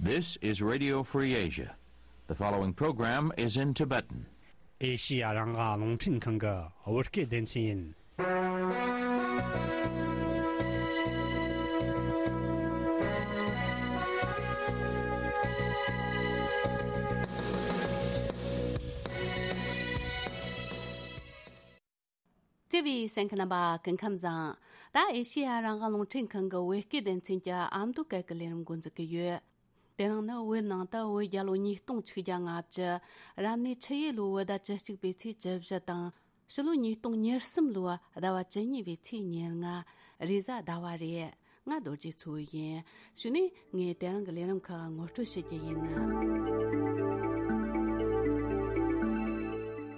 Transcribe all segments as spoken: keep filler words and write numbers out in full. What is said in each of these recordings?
This is Radio Free Asia. The following program is in Tibetan. ཨེ་ཤི་ཡ་རང་དབང་རླུང་འཕྲིན་ཁང་གི་བོད་སྐད་སྡེ་ཚན་ཡིན། བརྩེ་བའི་གསན་མཁན་རྣམ་པ་སྐུ་ཁམས་བཟང་། ད་ཨེ་ཤི་ཡ་རང་དབང་རླུང་འཕྲིན་ཁང་གི་བོད་སྐད་སྡེ་ཚན་གྱི་ཨ་མདོ་སྐད་ཀྱི་ལས་རིམ་འགོ་འཛུགས་ཀྱི་ཡོད། དེ་རིང་ནི་བོད་ནང་དུ་བོད་རྒྱལ་ལོ་ཉིས་སྟོང་ཆིག་བརྒྱ་ལྔ་བཅུ། རབ་གནས་ཆུ་ཡོས་ལོའི་བོད་ཟླ་བཅུ་གཅིག་པའི་ཚེས་བཅུ་བཞི་དང་། ཕྱི་ལོ་ཉིས་སྟོང་ཉེར་གསུམ་ལོའི་ཟླ་བ་བཅུ་གཉིས་པའི་ཚེས་ཉེར་ལྔ། རེས་གཟའ་ཟླ་བ་རེད། ང་རྡོ་རྗེ་མཚོ་ཡིན། གཞུག་ནས་ངས་དེ་རིང་གི་ལས་རིམ་ཁག་ངོ་སྤྲོད་བྱེད་ཀྱི་ཡིན།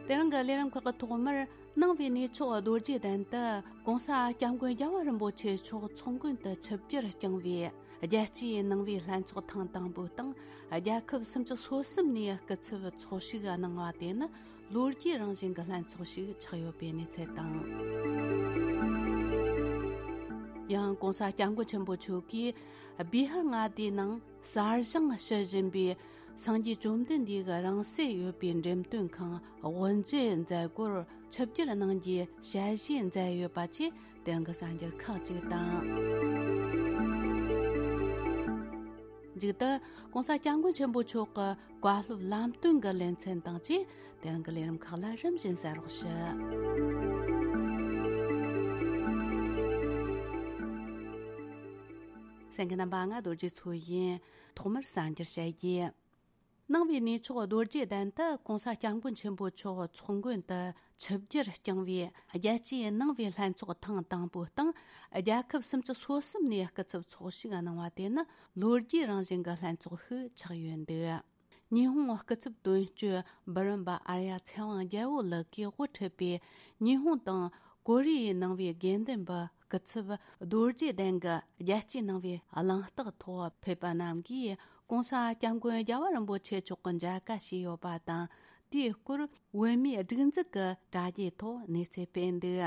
དེ་རིང་གི་ལས་རིམ་ཁག་གི་ཐོག་མར། ནང་པའི་གནས་མཆོག་རྡོ་རྗེ་གདན་དུ་༸གོང་ས་༸སྐྱབས་མགོན་རྒྱལ་བ་རིན་པོ་ཆེ་མཆོག་ཚོགས་མགོན་དུ་ཆིབས་བསྒྱུར་བསྐྱངས་པའི་རྒྱལ་སྤྱིའི་ནང་པའི་ལྷན་ཚོགས་ཐེངས་དང་པོའི་སྟེང་རྒྱལ་ཁབ་སུམ་ཅུ་སོ་གསུམ་ནས་སྐུ་ཚབ་ཚོགས་ཞུགས་གནང་བ་དེ་ནི་ལོ་རྒྱུས་རང་བཞིན་གྱི་ལྷན་ཚོགས་ཤིག་ཆགས་ཡོད་པའི་གནས་ཚུལ་དང་། ཡང་༸གོང་ས་༸སྐྱབས་མགོན་ཆེན་པོ་མཆོག་གིས་བི་ཧར་མངའ་སྡེའི་ནང་གསར་བཞེངས་ཞུ་བཞིན་པའི་སངས་རྒྱས་བཅོམ་ལྡན་འདས་ཀྱི་རང་སྲིད་ཡོད་པའི་འགྲེམས་སྟོན་ཁང་དབུ་འབྱེད་མཛད་སྒོར་ཆིབས་བསྒྱུར་གནང་རྒྱུའི་ཞལ་བཞེས་མཛད་ཡོད་པ་བཅས་དེ་རིང་གི་གསར་འགྱུར་ཁག་ཅིག་དང་། མཇུག་ཏུ་༸གོང་ས་༸སྐྱབས་མགོན་ཆེན་པོ་མཆོག་གི་བཀའ་སློབ་ལམ་སྟོན་གྱི་ལེ་ཚན་དང་བཅས་དེ་རིང་གི་ལས་རིམ་ཁག་ལ་རིམ་བཞིན་གསན་རོགས་ཞུ། གསན་མཁན་རྣམ་པ། ང་རྡོ་རྗེ་མཚོ་ཡིན། ཐོག་མར་གསར་འགྱུར་བཤད་རྒྱུ། ནང་པའི་གནས་མཆོག་རྡོ་རྗེ་གདན་དུ་༸གོང་ས་༸སྐྱབས་མགོན་ཆེན་པོ་མཆོག་ཚོགས་མགོན་དུ་ཆིབས་བསྒྱུར་བསྐྱངས་པའི་རྒྱལ་སྤྱིའི་ནང་པའི་ལྷན་ཚོགས་ཐེངས་དང་པོའི་སྟེང་རྒྱལ་ཁབ་སུམ་ཅུ་སོ་གསུམ་ནས་སྐུ་ཚབ་ཚོགས་ཞུགས་གནང་བ་དེ་ནི་ལོ་རྒྱུས་རང་བཞིན་གྱི་ལྷན་ཚོགས་ཤིག་ཆགས་ཡོད་འདུག་ཉི་ཧོང་སྐུ་ཚབ་དོན་གཅོད་འབུམ་རམས་པ་ཨརྱ་ཚེ་དབང་རྒྱལ་པོ་ལགས་ཀྱིས་དབུ་ཁྲིད་པའི་ཉི་ཧོང་དང་ཀོ་རི་ཡའི་ནང་པའི་དགེ་འདུན་པ་སྐུ་ཚབ་རྡོ་རྗེ་གདན་གྱི་རྒྱལ་སྤྱིའི་ནང་པའི་གླེང་སྟེགས་ཐོག་ཕེབས་པ་རྣམས་ཀྱིས་༸གོང་ས་༸སྐྱབས་མགོན་རྒྱལ་བ་རིན་པོ་ཆེ་མཆོག་གི་མཇལ་ཁ་ཞུས་ཡོད་པ་དང་། དེའི་སྐོར་བོད་མིའི་སྒྲིག་འཛུགས་ཀྱི་དྲ་རྒྱའི་ཐོག་གནས་ཚུལ་སྤེལ་འདུག་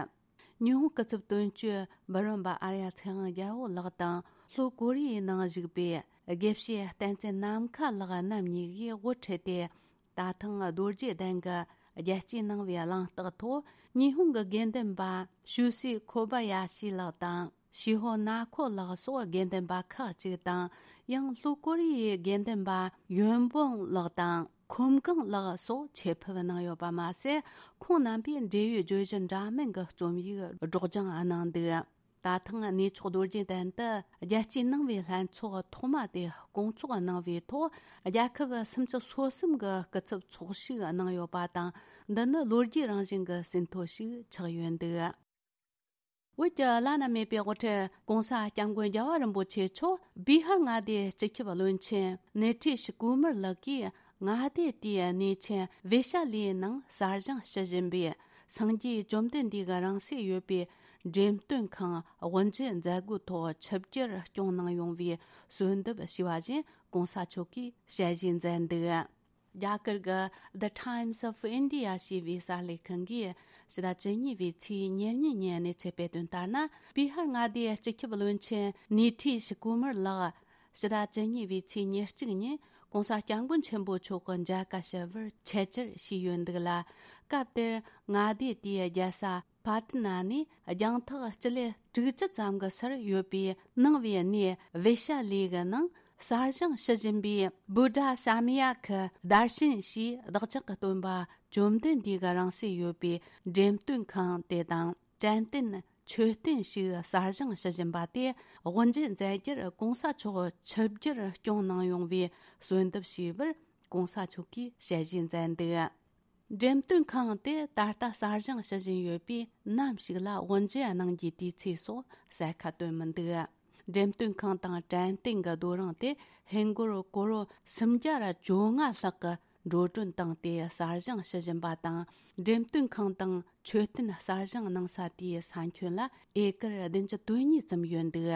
ཉི་ཧོང་སྐུ་ཚབ་དོན་གཅོད་འབུམ་རམས་པ་ཨརྱ་ཚེ་དབང་རྒྱལ་པོ་ལགས་དང་ལྷོ་ཀོ་རི་ཡའི་ནང་བཞུགས་པའི་དགེ་བཤེས་བསྟན་འཛིན་ནམ་མཁའ་ལགས་རྣམ་གཉིས་ཀྱིས་དབུ་ཁྲིད་དེ། ད་ཐེངས་རྡོ་རྗེ་གདན་གྱི་རྒྱལ་སྤྱིའི་ནང་པའི་གླེང་སྟེགས་ཐོག་ཉི་ཧོང་གི་དགེ་འདུན་པ་ཤུ་སི་ཁོ་བ་ཡ་ཤི་ལགས་དང་ཤི་ཧོ་ན་ཁོ་ལགས་སོགས་དགེ་འདུན་པ་ཁག་ཅིག་དང་། ཡང་ལྷོ་ཀོ་རི་ཡའི་དགེ་འདུན་པ་ཡོན་བོང་ལགས་དང་ཁོམ་གང་ལགས་སོགས་ཆེད་ཕེབས་གནང་ཡོད་པ་མ་ཟད། ཁོང་རྣམ་པས་འབྲེལ་ཡོད་བརྗོད་གཞི་འདྲ་མིན་གྱི་རྩོམ་ཡིག་སྒྲོག་སྦྱང་གནང་འདུག་ད་ཐེངས་གནས་མཆོག་རྡོ་རྗེ་གདན་དུ་རྒྱལ་སྤྱིའི་ནང་པའི་ལྷན་ཚོགས་ཐོག་མ་དེ་སྐོང་ཚོགས་གནང་བའི་ཐོག་རྒྱལ་ཁབ་སུམ་ཅུ་སོ་གསུམ་གྱི་སྐུ་ཚབ་ཚོགས་ཞུགས་གནང་ཡོད་པ་དང་། འདི་ནི་ལོ་རྒྱུས་རང་བཞིན་གྱི་ཟིན་ཐོ་ཞིག་ཆགས་ཡོད་འདུག་བོད་ཀྱི་བླ་ན་མེད་པའི་དབུ་ཁྲིད་༸གོང་ས་༸སྐྱབས་མགོན་རྒྱལ་བ་རིན་པོ་ཆེ་མཆོག་བི་ཧར་མངའ་སྡེའི་སྤྱི་ཁྱབ་བློན་ཆེན་ནེ་ཐི་ཤི་ཀུ་མར་ལགས་ཀྱིས་མངའ་སྡེ་དེའི་གནས་ཆེན་བེ་ཤ་ལིའི་ནང་གསར་བཞེངས་ཞུ་བཞིན་པའི་སངས་རྒྱས་བཅོམ་ལྡན་འདས་ཀྱི་རང་སྲས་ཡོད་པའི་འགྲེམས་སྟོན་ཁང་དབུ་འབྱེད་མཛད་སྒོའི་ཐོག་ཆིབས་བསྒྱུར་སྐྱོང་གནང་ཡོང་བའི་གསོལ་འདེབས་ཞུས་པ་བཞིན་༸གོང་ས་མཆོག་གིས་ཞལ་བཞེས་མཛད་འདུག་རྒྱ་གར་གྱི་The Times of India ཞེས་པའི་གསར་ལས་ཁང་གིས་ཕྱི་ཟླ་བཅུ་གཉིས་པའི་ཚེས་ཉེར་གཉིས་ཉིན་གནས་ཚུལ་སྤེལ་དོན་ལྟར་ན། བི་ཧར་མངའ་སྡེའི་སྤྱི་ཁྱབ་བློན་ཆེན་ནི་ཐི་ཤི་ཀུ་མར་ལགས་ཕྱི་ཟླ་བཅུ་གཉིས་པའི་ཚེས་ཉེར་གཅིག་ཉིན་༸གོང་ས་༸སྐྱབས་མགོན་ཆེན་པོ་མཆོག་གི་མཇལ་ཁ་ཞུ་བར་ཆེད་བཅར་ཞུས་ཡོད་འདུག་ལ། སྐབས་དེར་མངའ་སྡེ་དེའི་རྒྱལ་ས་པ་ཏི་ན་ནས་རྒྱང་ཐག་སྤྱི་ལེ་དྲུག་ཅུ་ཙམ་གྱི་སར་ཡོད་པའི་ནང་པའི་གནས་བེ་ཤ་ལི་གི་ནང་གསར་བཞེངས་ཞུ་བཞིན་པའི་བུདྡྷ་ས་མ་ཡ་ཀི་དར་ཤན་ཞེས་བདག་ཅག་གི་སྟོན་པ་བཅོམ་ལྡན་འདས་ཀྱི་རང་གཟིགས་ཡོད་པའི་འགྲེམས་སྟོན་ཁང་དེ་དང་། དྲན་རྟེན་མཆོད་རྟེན་ཞིག་གསར་བཞེངས་ཞུ་བཞིན་པ་དེ་དབུ་འབྱེད་མཛད་རྒྱུར་༸གོང་ས་མཆོག་ཆིབས་བསྒྱུར་སྐྱོང་གནང་ཡོང་བའི་གསོལ་འདེབས་ཞུས་པར་༸གོང་ས་མཆོག་གིས་ཞལ་བཞེས་མཛད་འདུག་འགྲེམས་སྟོན་ཁང་དེ་ད་ལྟ་གསར་བཞེངས་ཞུ་བཞིན་ཡོད་པས་ནམ་ཞིག་ལ་དབུ་འབྱེད་གནང་རྒྱུའི་དུས་ཚོད་སོགས་གསལ་ཁ་བཏོན་མི་འདུག་འགྲེམས་སྟོན་ཁང་དང་དྲན་རྟེན་གྱི་རྡོ་རིང་དེ་ཧིན་སྒོར་ཀོ་རོ་སུམ་བརྒྱ་ར་བཅོ་ལྔ་ལྷག་གི་འགྲོ་གྲོན་བཏང་སྟེ་གསར་བཞེངས་ཞུ་བཞིན་པ་དང་། འགྲེམས་སྟོན་ཁང་དང་མཆོད་རྟེན་གསར་བཞེངས་གནང་ས་དེའི་ས་ཁྱོན་ལ་ཨེ་ཀར་བདུན་ཅུ་དོན་གཉིས་ཙམ་ཡོད་འདུག་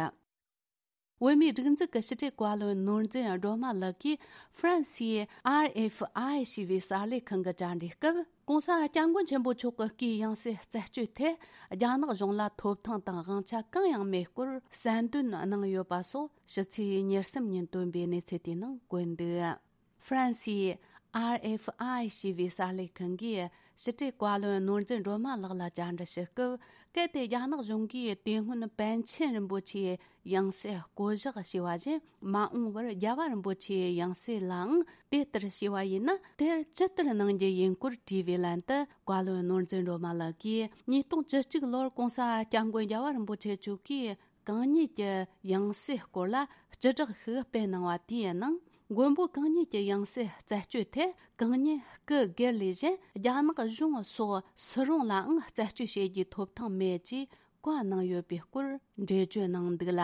བོད་མིའི་སྒྲིག་འཛུགས་ཀྱི་ཕྱི་དྲིལ་བཀའ་བློན་ནོར་འཛིན་སྒྲོལ་མ་ལགས་ཀྱིས་ཧྥ་རན་སིའི་ཨར་ཨེཕ་ཨའི་ཞེས་པའི་གསར་ལས་ཁང་གི་བཅར་འདྲིའི་སྐབས། ྋགོང་ས་ྋསྐྱབས་མགོན་ཆེན་པོ་མཆོག་གི་སྐུའི་ཡང་སྲིད་རྩད་གཅོད་ཐད་རྒྱ་ནག་གཞུང་ལ་ཐོབ་ཐང་དང་དབང་ཆ་གང་ཡང་མེད་སྐོར་གསལ་འདོན་གནང་ཡོད་པ་སོགས་ཕྱི་ཚེས་ཉེར་གསུམ་ཉིན་བཏོན་པའི་གནས་ཚུལ་དེའི་ནང་བཀོད་འདུག་ཧྥ་རན་སིའི་ཨར་ཨེཕ་ཨའི་ཞེས་པའི་གསར་ལས་ཁང་གིས་ཕྱི་དྲིལ་བཀའ་བློན་ནོར་འཛིན་སྒྲོལ་མ་ལགས་ལ་བཅར་འདྲི་ཞུ་སྐབས། གལ་ཏེ་རྒྱ་ནག་གཞུང་གིས་དེ་སྔོན་པཎ་ཆེན་རིན་པོ་ཆེའི་ཡང་སྲིད་བསྐོ་གཞག་བྱས་པ་བཞིན་མ་འོངས་པར་རྒྱལ་བ་རིན་པོ་ཆེའི་ཡང་སྲིད་ལའང་དེ་ལྟར་བྱས་པ་ཡིན་ན། དེར་ཇི་ལྟར་གནང་རྒྱུ་ཡིན་སྐོར་དྲིས་པའི་ལན་དུ། བཀའ་བློན་ནོར་འཛིན་སྒྲོལ་མ་ལགས་ཀྱིས་ཉིས་སྟོང་བཅུ་གཅིག་ལོར་ྋགོང་ས་ྋསྐྱབས་མགོན་རྒྱལ་བ་རིན་པོ་ཆེ་མཆོག་གིས་གང་ཉིད་ཀྱི་ཡང་སྲིད་སྐོར་ལ་སྤྱི་བསྒྲགས་ཤིག་སྤེལ་གནང་བ་དེའི་ནང་། མགོན་པོ་གང་ཉིད་ཀྱི་ཡང་སྲིད་རྩད་གཅོད་ཐད་གང་ཉིད་སྐུ་སྒེར་ལས་གཞན་རྒྱ་ནག་གཞུང་སོགས་སུ་རུང་ལའང་རྩད་གཅོད་བྱེད་རྒྱུའི་ཐོབ་ཐང་མེད་ཅེས་བཀའ་གནང་ཡོད་པའི་སྐོར་འགྲེལ་བརྗོད་གནང་འདུག་ལ།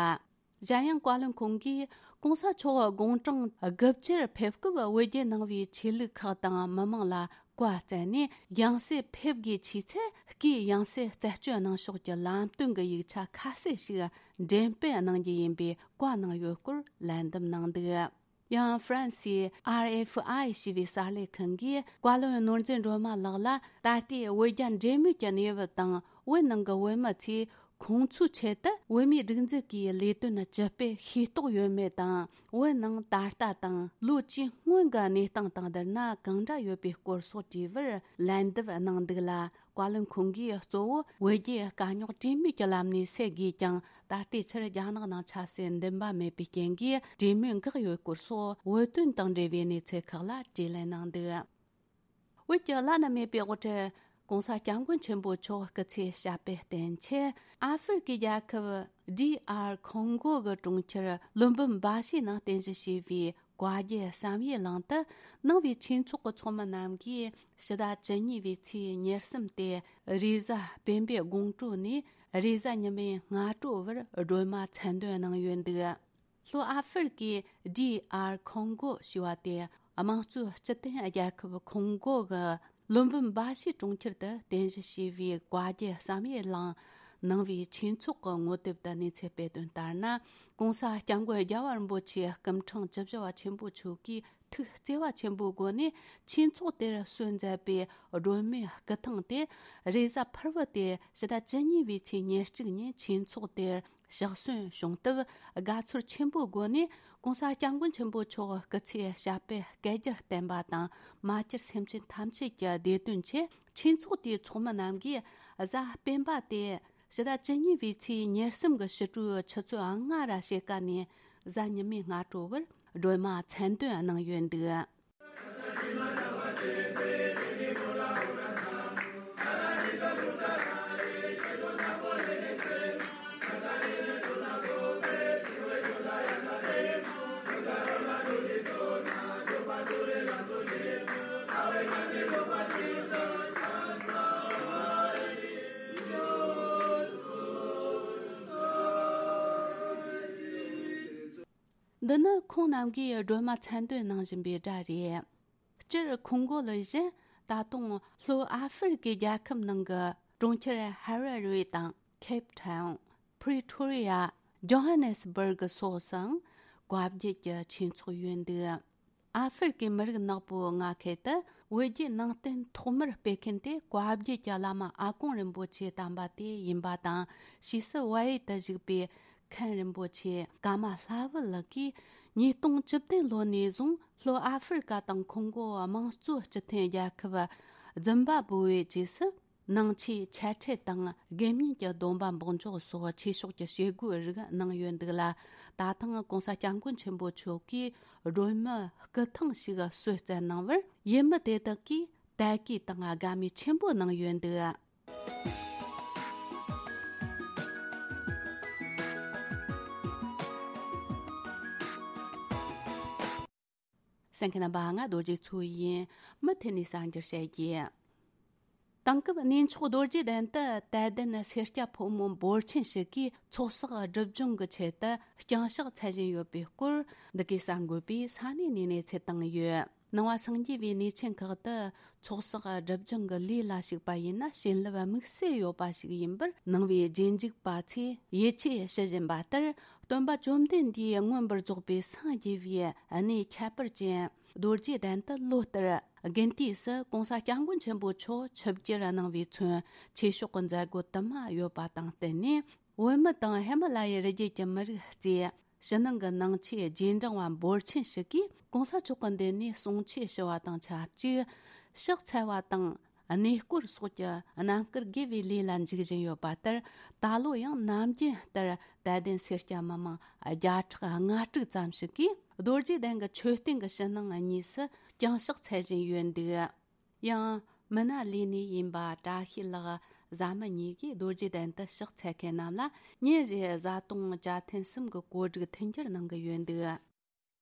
གཞན་ཡང་བཀའ་བློན་ཁོང་གིས་ྋགོང་ས་མཆོག་དགུང་གྲངས་དགུ་བཅུར་ཕེབས་སྐབས་བོད་བརྒྱུད་ནང་པའི་ཆོས་ལུགས་ཁག་དང་མི་མང་ལ་བཀའ་བསྩལ་ནས། ཡང་སྲིད་ཕེབས་དགོས་ཆེས་ཚེ་སྐུའི་ཡང་སྲིད་རྩད་གཅོད་གནང་ཕྱོགས་ཀྱི་ལམ་སྟོན་གྱི་ཡིག་ཆ་ཁ་གསལ་ཞིག་འགྲེམས་སྤེལ་གནང་རྒྱུ་ཡིན་པའི་བཀའ་གནང་ཡོད་སྐོར་ལན་འདེབས་གནང་འདུག་ཡང་ཧྥ་རན་སིའི་ཨར་ཨེཕ་ཨའི་ཞེས་པའི་གསར་ལས་ཁང་གིས་བཀའ་བློན་ནོར་འཛིན་སྒྲོལ་མ་ལགས་ལ། ད་ལྟའི་བོད་རྒྱ་འབྲེལ་མོལ་གྱི་གནས་བབ་དང་། བོད་ནང་གི་བོད་མི་ཚོས་ཁོང་ཚོའི་ཆེད་དུ་བོད་མིའི་སྒྲིག་འཛུགས་ཀྱི་ལས་དོན་ཇི་སྤེལ་ཤེས་རྟོགས་ཡོད་མེད་དང་། བོད་ནང་ད་ལྟ་དང་ལོ་བཅུའི་སྔོན་གྱི་གནས་སྟངས་དང་བསྡུར་ན་གང་འདྲ་ཡོད་པའི་སྐོར་སོགས་དྲིས་པར་ལན་འདེབས་གནང་འདུག་ལ། བཀའ་བློན་ཁོང་གིས་གཙོ་བོ་བོད་རྒྱའི་དཀའ་རྙོག་གྲོས་མོལ་གྱི་ལམ་ནས་སེལ་དགོས་ཀྱང་། ད་ལྟའི་ཆར་རྒྱ་ནག་ནང་ཆབ་སྲིད་འདུན་པ་མེད་པའི་རྐྱེན་གྱིས་གྲོས་མོལ་འགག་ཡོད་སྐོར་སོགས་བོད་དོན་དང་འབྲེལ་བའི་གནས་ཚུལ་ཁག་ལ་དྲིས་ལན་གནང་འདུག་བོད་ཀྱི་བླ་ན་མེད་པའི་དབུ་ཁྲིད་ྋགོང་ས་ྋསྐྱབས་མགོན་ཆེན་པོ་མཆོག་སྐུ་ཚེ་ཞབས་པད་བརྟན་ཆེད། ཨ་ཧྥེ་རི་ཁའི་རྒྱལ་ཁབ་ཌི་ཨར་ཁོང་གོ་གི་གྲོང་ཁྱེར་ལུམ་བུམ་བཱ་ཤི་ནང་རྟེན་གཞི་བྱས་པའི་བཀའ་བརྒྱུད་བསམ་ཡས་གླིང་དུ། ནང་པའི་ཆོས་ཚོགས་ཀྱི་ཚོགས་མི་རྣམས་ཀྱིས་ཕྱི་ཟླ་བཅུ་གཉིས་པའི་ཚེས་ཉེར་གསུམ་སྟེ་རེས་གཟའ་སྤེན་པའི་དགོང་དྲོ་ནས་རེས་གཟའ་ཉི་མའི་སྔ་དྲོ་བར་སྒྲོལ་མ་མཚན་འདོན་གནང་ཡོད་འདུག་ལྷོ་ཨ་ཧྥེ་རི་ཁའི་ཌི་ཨར་ཁོང་གོ་ཞེས་པ་དེ་དམངས་གཙོའི་སྤྱི་མཐུན་རྒྱལ་ཁབ་ཁོང་གོ་གི་ལུམ་བུམ་བཱ་ཤི་གྲོང་ཁྱེར་དུ་རྟེན་གཞི་བྱས་པའི་བཀའ་བརྒྱུད་བསམ་ཡས་གླིང་ནང་པའི་ཆོས་ཚོགས་ཀྱི་ངོ་དེབ་ཏུ་གནས་ཚུལ་སྤེལ་དོན་ལྟར་ན། ྋགོང་ས་ྋསྐྱབས་མགོན་རྒྱལ་བ་རིན་པོ་ཆེ་སྐུ་ཕྲེང་བཅུ་བཞི་པ་ཆེན་པོ་མཆོག་གིས་ཐུགས་བརྩེ་བ་ཆེན་པོའི་སྒོ་ནས་ཆོས་ཚོགས་དེར་གསོལ་མཛད་པའི་སྒྲོལ་མའི་སྐུ་ཐང་དེ་རེས་གཟའ་ཕུར་བུ་སྟེ་ཕྱི་ཟླ་བཅུ་གཉིས་པའི་ཚེས་ཉེར་གཅིག་ཉིན་ཆོས་ཚོགས་དེར་གཤེགས་གསོལ་བྱུང་སྟབས། དགའ་ཚོར་ཆེན་པོའི་སྒོ་ནས་ྋགོང་ས་ྋསྐྱབས་མགོན་ཆེན་པོ་མཆོག་སྐུ་ཚེ་ཞབས་པད་བསྐལ་བརྒྱར་བརྟན་པ་དང་། མ་གྱུར་སེམས་ཅན་ཐམས་ཅད་ཀྱི་བདེ་དོན་ཆེད། ཆོས་ཚོགས་དེའི་ཚོགས་མི་རྣམས་ཀྱིས་གཟའ་སྤེན་པ་སྟེ་ཕྱི་ཟླ་བཅུ་གཉིས་པའི་ཚེས་ཉེར་གསུམ་གྱི་ཕྱི་དྲོའི་ཆུ་ཚོད་ལྔ་ར་ཕྱེད་ཀ་ནས་གཟའ་ཉི་མའི་སྔ་དྲོ་བར་སྒྲོལ་མ་མཚན་འདོན་གནང་ཡོད་འདུག་འདི་ནི་ཁོང་རྣམས་ཀྱིས་སྒྲོལ་མ་མཚན་འདོན་གནང་བཞིན་པའི་སྒྲ་རེད། སྤྱིར་ཁོང་གོ་ལ་བཞིན་ད་དུང་ལྷོ་ཨ་ཧྥེ་རི་ཁའི་རྒྱལ་ཁབ་ནང་གི་གྲོང་ཁྱེར་ཧ་ར་རེ་དང་ཁེབ་ཐའུན། པྲི་ཐོ་རི་ཡ། ཇོ་ཧ་ནེ་སི་སྦུར་གི་སོགས་སུའང་བཀའ་བརྒྱུད་ཀྱི་ཆོས་ཚོགས་ཡོད་འདུག་ཨ་ཧྥེ་རི་ཁའི་མི་རིགས་ནག་པོའི་མངའ་ཁུལ་དུ་བོད་བརྒྱུད་ནང་བསྟན་ཐོག་མར་སྤེལ་མཁན་དེ་བཀའ་བརྒྱུད་ཀྱི་བླ་མ་ཨ་དཀོན་རིན་པོ་ཆེ་དམ་པ་དེ་ཡིན་པ་དང་། ཕྱིས་སུ་བལ་ཡུལ་དུ་བཞུགས་པའི་མཁན་རིན་པོ་ཆེ་ཀ་མ་ལྷ་བུ་ལགས་ཀྱིས་ཉིས་སྟོང་བཅུ་བདུན་ལོ་ནས་བཟུང་ལྷོ་ཨ་ཧྥེ་རི་ཀ་དང་ཁོང་གོ་དམངས་གཙོ་སྤྱི་མཐུན་རྒྱལ་ཁབ་ཛིམ་བྷ་བྷོའི་རྗེས་སུ། ནང་ཆོས་འཆད་ཁྲིད་དང་དགེ་བསྙེན་གྱི་སྡོམ་པ་འབོགས་འཇོག་སོགས་ཆོས་ཕྱོགས་ཀྱི་བྱེད་སྒོའི་རིགས་གནང་ཡོད་འདུག་ལ། ད་ཐེངས་༧གོང་ས་༧སྐྱབས་མགོན་ཆེན་པོ་མཆོག་གིས་སྒྲོལ་མའི་སྐུ་ཐང་ཞིག་གསོལ་སྩལ་གནང་བར་ཡུལ་མི་དེ་དག་གིས་དད་གུས་དང་དགའ་མོས་ཆེན་པོ་གནང་ཡོད་འདུག་གསན་མཁན་རྣམ་པ། ང་རྡོ་རྗེ་མཚོ་ཡིན། མུ་མཐུད་ནས་གསར་འགྱུར་བཤད་རྒྱུ། དེང་སྐབས་གནས་མཆོག་རྡོ་རྗེ་གདན་དུ་དད་ལྡན་སེར་སྐྱ་ཕོ་མོ་འབོར་ཆེན་ཞིག་གིས་ཚོགས་བསགས་སྒྲིབ་སྦྱོང་གི་ཆེད་དུ་ལྕང་ཕྱག་འཚལ་བཞིན་ཡོད་པའི་སྐོར། འདི་གའི་གསར་འགོད་པས་ས་གནས་ནས་གནས་ཚུལ་བཏང་ཡོད། ནང་བ་སངས་རྒྱས་པའི་གནས་ཆེན་ཁག་ཏུ་ཚོགས་བསགས་སྒྲིབ་སྦྱང་གི་ལས་ལ་ཞུགས་པ་ཡིན་ན། བྱིན་རླབས་དམིགས་བསལ་ཡོད་པ་ཞིག་ཡིན་པར་ནང་བའི་རྗེས་འཇུག་པ་ཚོས་ཡིད་ཆེས་ཞུ་བཞིན་པ་ལྟར། སྟོན་པ་བཅོམ་ལྡན་འདས་མངོན་པར་རྫོགས་པའི་སངས་རྒྱས་པའི་གནས་ཁྱད་པར་ཅན་རྡོ་རྗེ་གདན་དུ་ལོ་ལྟར་དགུན་དུས་སུ་གོང་ས་སྐྱབས་མགོན་ཆེན་པོ་མཆོག་ཆིབས་བསྒྱུར་གནང་བའི་ཚུན། ཆོས་ཕྱོགས་ཀྱི་མཛད་སྒོ་དུ་མ་ཡོད་པ་དང་བསྟུན་ནས། བོད་མི་དང་ཧི་མ་ལ་ཡའི་རི་རྒྱུད་ཀྱི་མི་རིགས་བཅས། ཕྱི་ནང་གི་ནང་ཆོས་རྗེས་འབྲང་བ་འབོར་ཆེན་ཞིག་གིས་གོང་ས་མཆོག་གི་མདུན་ནས་གསུང་ཆོས་ཞུ་བ་དང་ཆབས་ཅིག། ཕྱག་འཚལ་བ་དང་གནས་སྐོར་སོགས་ཀྱི་རྣམ་དཀར་དགེ་བའི་ལས་ལ་འཇུག་བཞིན་ཡོད་པ་ལྟར། ད་ལོ་ཡང་ནམ་རྒྱུན་ལྟར་དད་ལྡན་སེར་སྐྱ་མི་མང་བརྒྱ་ཕྲག་ལྔ་དྲུག་ཙམ་ཞིག་གིས་རྡོ་རྗེ་གདན་གྱི་མཆོད་རྟེན་གྱི་ཕྱི་ནང་གཉིས་སུ་བརྐྱང་ཕྱག་འཚལ་བཞིན་ཡོད་འདུག། ཡང་མི་སྣ་ལས་སྣེ་ཡིན་པ་བཀྲ་ཤིས་ལགས། བཟའ་མི་གཉིས་ཀྱིས་རྡོ་རྗེ་གདན་དུ་ཕྱག་འཚལ་མཁན་རྣམས་ལ་ཉིན་རེར་བཟའ་བཏུང་བཅའ་ཐུན་གསུམ་གྱི་གོ་སྒྲིག་མཐུན་འགྱུར་གནང་གི་ཡོད་འདུག།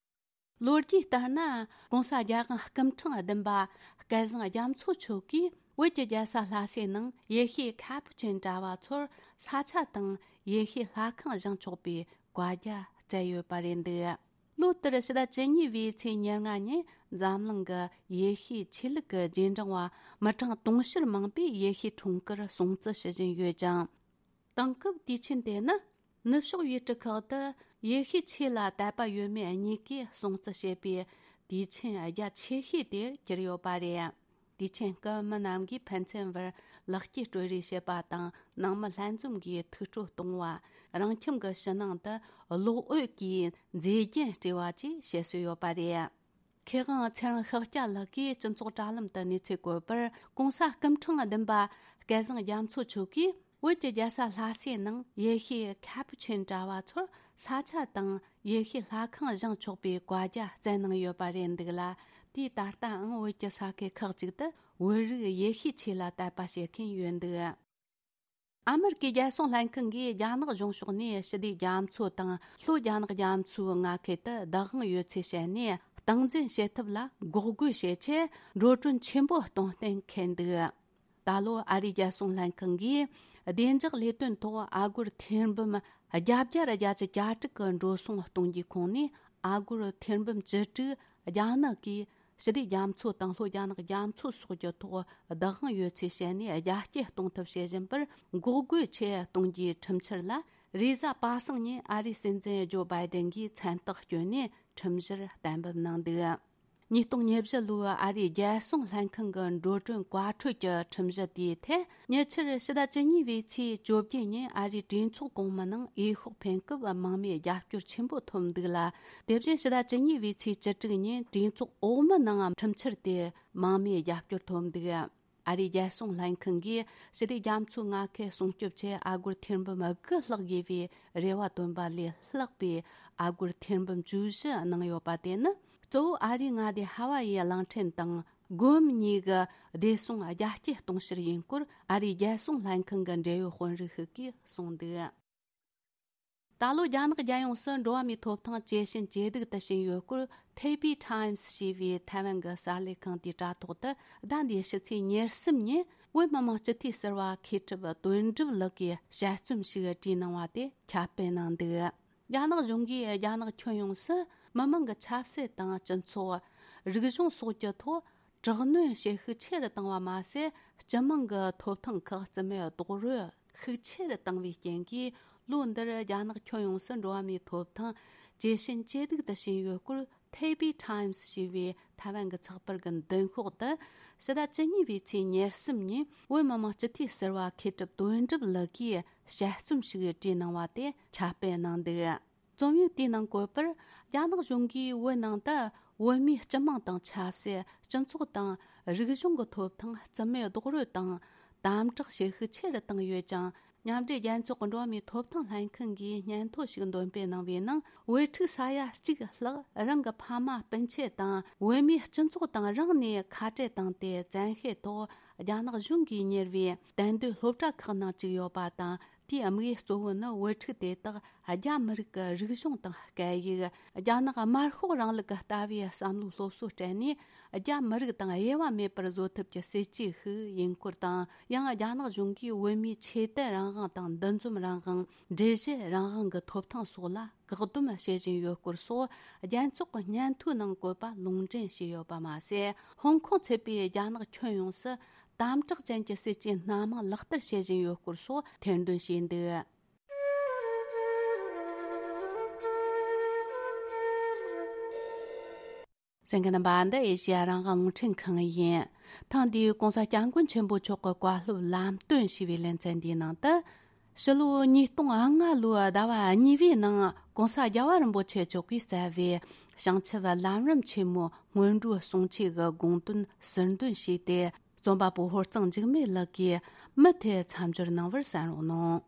ལོ་རྒྱུས་ལྟར་ན། གོང་ས་རྒྱལ་དབང་སྐུ་ཕྲེང་བདུན་པ་སྐལ་བཟང་རྒྱ་མཚོ་མཆོག་གིས་བོད་ཀྱི་རྒྱལ་ས་ལྷ་སའི་ནང་ཡེ་ཤུའི་ཁ་པུ་ཆིན་གྲྭ་བ་ཚོར་ས་ཆ་དང་ཡེ་ཤུའི་ལྷ་ཁང་བཞེངས་ཆོག་པའི་བཀའ་རྒྱ་བསྩལ་ཡོད་པ་རེད་འདུག། ལོ་ལྟར་ཕྱི་ཟླ་བཅུ་གཉིས་པའི་ཚེས་ཉེར་ལྔ་ཉིན་འཛམ་གླིང་གི་ཡེ་ཤུའི་ཆོས་ལུགས་ཀྱི་རྗེས་འབྲང་བ་མི་གྲངས་དུང་ཕྱུར་མང་པོས་ཡེ་ཤུའི་འཁྲུངས་སྐར་སྲུང་བརྩི་ཞུ་བཞིན་ཡོད་ཅིང་། དེང་སྐབས་དུས་ཆེན་དེ་ནི་ནུབ་ཕྱོགས་ཡུལ་གྲུ་ཁག་ཏུ་ཡེ་ཤུའི་ཆོས་ལ་དད་པ་ཡོད་མེད་གཉིས་ཀས་སྲུང་བརྩི་བྱེད་པའི་དུས་ཆེན་རྒྱ་ཆེ་ཤོས་དེར་གྱུར་ཡོད་པ་རེད། དུས་ཆེན་སྐབས་མི་རྣམས་ཀྱིས་ཕན་ཚུན་བར་ལེགས་སྐྱེས་སྤྲོད་རེས་བྱེད་པ་དང་། ནང་མི་ལྷན་འཛོམས་ཀྱིས་ཐུགས་སྤྲོ་གཏོང་བ། རང་ཁྱིམ་གྱི་ཕྱི་ནང་དུ་གློག་འོད་ཀྱིས་མཛེས་རྒྱན་སྤྲས་པ་བཅས་བྱེད་སྲོལ་ཡོད་པ་རེད། མཁས་དབང་ཚེ་རིང་ཤཱཀྱ་ལགས་ཀྱིས་སྤྱི་ཚོགས་དྲ་ལམ་དུ་གནས་ཚུལ་བཀོད་པར། གོང་ས་སྐུ་ཕྲེང་བདུན་པ་སྐལ་བཟང་རྒྱ་མཚོ་མཆོག་གིས་བོད་ཀྱི་རྒྱལ་ས་ལྷ་སའི་ནང་ཡེ་ཤུའི་ཁ་པུ་ཆིན་གྲྭ་བ་ཚོར་ས་ཆ་དང་ཡེ་ཤུའི་ལྷ་ཁང་བཞེངས་ཆོག་པའི་བཀའ་རྒྱ་བསྩལ་གནང་ཡོད་པ་རེད་འདུག་ལ། དེས་ད་ལྟའང་བོད་ཀྱི་ས་ཁུལ་ཁག་ཅིག་ཏུ་བོད་རིགས་ཡེ་ཤུའི་ཆོས་ལ་དད་པ་བྱེད་མཁན་ཡོད་འདུག། ཨ་མེ་རི་ཀའི་རྒྱལ་སྲུང་ལྷན་ཁང་གིས་རྒྱ་ནག་གཞུང་ཕྱོགས་ནས་ཞི་བདེའི་རྒྱ་མཚོ་དང་ལྷོ་རྒྱ་ནག་རྒྱ་མཚོའི་མངའ་ཁུལ་དུ་བདག་དབང་ཡོད་ཚུལ་བཤད་ནས། སྟངས་འཛིན་བྱེད་ཐབས་ལ་འགོག་རྒོལ་བྱེད་ཆེད་འགྲོ་གྲོན་ཆེན་པོ་གཏོང་གཏན་འཁེལ་འདུག། ད་ལོ་ཨ་རིའི་རྒྱལ་སྲུང་ལྷན་ཁང་གིས་བདེ་འཇགས་ལས་དོན་ཐོག་ཨ་སྒོར་ཐེར་འབུམ་བརྒྱད་བརྒྱ་གྱ་དྲུག་གི་འགྲོ་སོང་གཏོང་རྒྱུའི་ཁོངས་ནས། ཨ་སྒོར་ཐེར་འབུམ་བཅུ་དྲུག་རྒྱ་ནག་གིས་ཞི་བདེ་རྒྱ་མཚོ་དང་ལྷོ་རྒྱ་ནག་རྒྱ་མཚོ་སོགས་ཀྱི་ཐོག་བདག་དབང་ཡོད་ཚུལ་བཤད་ནས། རྒྱ་སྐྱེད་གཏོང་ཐབས་བྱེད་བཞིན་པར་འགོག་རྒོལ་ཆེད་གཏོང་རྒྱུའི་ཁྲིམས་འཆར་ལ། རེས་གཟའ་པ་སངས་ཉིན་ཨ་རིའི་སྲིད་འཛིན་ཇོ་བྷའི་ཌེན་གྱིས་མཚན་རྟགས་བསྐྱོན་ནས་ཁྲིམས་གཞིར་གཏན་འབེབས་གནང་འདུག། ཉིས་སྟོང་ཉེར་བཞི་ལོའི་ཨ་རིའི་རྒྱལ་སྲུང་ལྷན་ཁང་གི་འགྲོ་གྲོན་བཀའ་འཁྲོལ་གྱི་ཁྲིམས་གཞི་དེའི་ཐད། ཉེ་ཆར་ཕྱི་ཟླ་བཅུ་གཉིས་པའི་ཚེས་བཅོ་བརྒྱད་ཉིན་ཨ་རིའི་གྲོས་ཚོགས་གོང་མའི་ནང་འོས་ཤོག་འཕེན་སྐབས་མང་མོས་རྒྱབ་སྐྱོར་ཆེན་པོ་ཐོབ་འདུག་ལ། དེ་བཞིན་ཕྱི་ཟླ་བཅུ་གཉིས་པའི་ཚེས་བཅུ་དྲུག་ཉིན་གྲོས་ཚོགས་འོག་མའི་ནང་ཁྲིམས་འཆར་དེ་མང་མོས་རྒྱབ་སྐྱོར་ཐོབ་འདུག། ཨ་རིའི་རྒྱལ་སྲུང་ལྷན་ཁང་གིས་ཞི་བདེ་རྒྱ་མཚོའི་མངའ་ཁུལ་སྲུང་སྐྱོབ་ཆེད་ཨ་སྒོར་ཐེར་འབུམ་དགུ་ལྷག་དགོས་པའི་རེ་བ་བཏོན་པ་ལས་ལྷག་པའི་ཨ་སྒོར་ཐེར་འབུམ་བཅུ་བཞི་གནང་ཡོད་པ་དེ་ནི། གཙོ་བོ་ཨ་རིའི་མངའ་སྡེ་ཧ་ཝ་ཡའི་གླིང་ཕྲན་དང་སྒོམ་གཉིས་ཀྱི་བདེ་སྲུང་རྒྱ་སྐྱེད་གཏོང་ཕྱིར་ཡིན་སྐོར་ཨ་རིའི་རྒྱལ་སྲུང་ལྷན་ཁང་གི་འབྲེལ་ཡོད་དཔོན་རིགས་ཤིག་གིས་གསུངས་འདུག། ད་ལོ་རྒྱ་ནག་རྒྱལ་ཡོངས་སུ་འགྲོ་བ་མིའི་ཐོབ་ཐང་ཇེ་ཞན་ཇེ་སྡུག་ཏུ་ཕྱིན་ཡོད་སྐོར། ཐེ་པི་ཊའིམ་སི་ཞེས་པའི་ཐའེ་ཝན་གྱི་གསར་ལས་ཁང་དེའི་དྲ་ཐོག་ཏུ་ཟླ་འདིའི་ཕྱི་ཚེས་ཉེར་གསུམ་ཉིན་བོད་མི་མང་སྤྱི་འཐུས་ཟུར་པ་མཁས་གྲུབ་དོན་གྲུབ་ལགས་ཀྱིས་དཔྱད་རྩོམ་ཞིག་བྲིས་གནང་བ་དེ་ཁྱབ་སྤེལ་གནང་འདུག། རྒྱ་ནག་གཞུང་གིས་རྒྱ་ནག་ཁྱོན་ཡོངས་སུ་མི་མང་གི་ཆབ་སྲིད་དང་སྤྱི་ཚོགས། རིག་གཞུང་སོགས་ཀྱི་ཐོག་དྲག་གནོན་བྱེད་ཤུགས་ཆེ་རུ་བཏང་བ་མ་ཟད། སྤྱི་དམངས་ཀྱི་ཐོབ་ཐང་ཁག་རྩིས་མེད་རྡོག་རོལ་ཤུགས་ཆེ་རུ་བཏང་བའི་རྐྱེན་གྱིས། ལོ་འདིར་རྒྱ་ནག་ཁྱོན་ཡོངས་སུ་འགྲོ་བ་མིའི་ཐོབ་ཐང་ཇེ་ཞན་ཇེ་སྡུག་ཏུ་ཕྱིན་ཡོད་སྐོར། ཐེ་པི་ཊའིམ་སི་ཞེས་པའི་ཐའེ་ཝན་གྱི་ཚགས་པར་གྱི་མདུན་ཤོག་ཏུ། ཕྱི་ཟླ་བཅུ་གཉིས་པའི་ཚེས་ཉེར་གསུམ་ཉིན་བོད་མི་མང་སྤྱི་འཐུས་ཟུར་པ་མཁས་གྲུབ་དོན་གྲུབ་ལགས་ཀྱིས་དཔྱད་རྩོམ་ཞིག་བྲིས་གནང་བ་དེ་ཁྱབ་སྤེལ་གནང་འདུག། རྩོམ་ཡིག་དེའི་ནང་བཀོད་པར། རྒྱ་ནག་གཞུང་གིས་བོད་ནང་དུ་བོད་མིའི་སྤྱི་དམངས་དང་ཆབ་སྲིད། སྤྱི་ཚོགས་དང་རིག་གཞུང་གི་ཐོབ་ཐང་རྩིས་མེད་རྡོག་རོལ་དང་དམ་དྲག་བྱེད་ཤུགས་ཆེ་རུ་བཏང་ཡོད་ཅིང་། མཉམ་འབྲེལ་རྒྱལ་ཚོགས་ཀྱི་འགྲོ་བ་མིའི་ཐོབ་ཐང་ལྷན་ཁང་གིས་སྙན་ཐོ་ཞིག་འདོན་སྤེལ་གནང་བའི་ནང་། བོད་ཕྲུག་ས་ཡ་གཅིག་ལྷག་རང་གི་ཕ་མ་སྤུན་མཆེད་དང་བོད་མིའི་སྤྱི་ཚོགས་དང་རང་ནས་ཁ་བྲལ་བཏང་སྟེ། བཙན་ཤེད་ཐོག་རྒྱ་ནག་གཞུང་གིས་གཉེར་བའི་དད་འདུས་སློབ་གྲྭ་ཁག་ནང་བཅུག་ཡོད་པ་དང་། དེའི་དམིགས་ཡུལ་གཙོ་བོ་ནི་བུ་ཕྲུག་དེ་དག་རྒྱ་མི་རིགས་ཀྱི་རིག་གཞུང་དང་སྐད་ཡིག་རྒྱ་ནག་དམར་ཤོག་རིང་ལུགས་ཀྱི་ལྟ་བའི་བསམ་བློའི་སློབ་གསོ་སྤྲད་ནས། རྒྱ་མི་རིགས་དང་དབྱེ་བ་མེད་པར་བཟོ་ཐབས་ཀྱི་སྲིད་ཇུས་ཤིག་ཡིན་སྐོར་དང་། ཡང་རྒྱ་ནག་གཞུང་གིས་བོད་མིའི་ཆོས་དད་རང་དབང་དང་འདུ་འཛོམས་རང་དབང་། སྒྲིག་གཞི་རང་དབང་གི་ཐོབ་ཐང་སོགས་ལ་བཀག་སྡོམ་བྱེད་བཞིན་ཡོད་སྐོར་སོགས་རྒྱལ་ཚོགས་ཀྱི་སྙན་ཐོའི་ནང་བཀོད་པ་ལུང་འདྲེན་བྱས་ཡོད་པ་མ་ཟད། ཧོང་ཀོང་ཚུད་པའི་རྒྱ་ནག་ཁྱོན་ཡོངས་སུ་དམ་དྲག་ཅན་གྱི་སྲིད་ཇུས་སྣ་མང་ལག་བསྟར་བྱེད་བཞིན་ཡོད་སྐོར་སོགས་ཐེར་འདོན་བྱས་འདུག་གསན་མཁན་རྣམ་པ། འདི་ཨེ་ཤེ་ཡ་རང་དབང་རླུང་འཕྲིན་ཁང་ཡིན། ཐེངས་འདིའི་༸གོང་ས་༸སྐྱབས་མགོན་ཆེན་པོ་མཆོག་གི་བཀའ་སློབ་ལམ་སྟོན་ཞུས་པའི་ལེ་ཚན་འདིའི་ནང་དུ། ཕྱི་ལོ་ཉིས་སྟོང་ལྔ་ལོའི་ཟླ་བ་གཉིས་པའི་ནང་༸གོང་ས་༸རྒྱལ་བ་རིན་པོ་ཆེ་མཆོག་གིས་གཙོས་པའི་བྱང་ཆུབ་ལམ་རིམ་ཆེན་མོའི་སྔོན་འགྲོའི་གསུང་ཆོས་ཀྱི་དགོངས་དོན་ཟུར་འདོན་བྱས་ཏེ། རྩོམ་པ་པོ་ཧོར་གཙང་འཇིགས་མེད་ལགས་ཀྱིས་མུ་མཐུད་མཚམས་སྦྱོར་གནང་བར་གསན་རོགས་གནང་།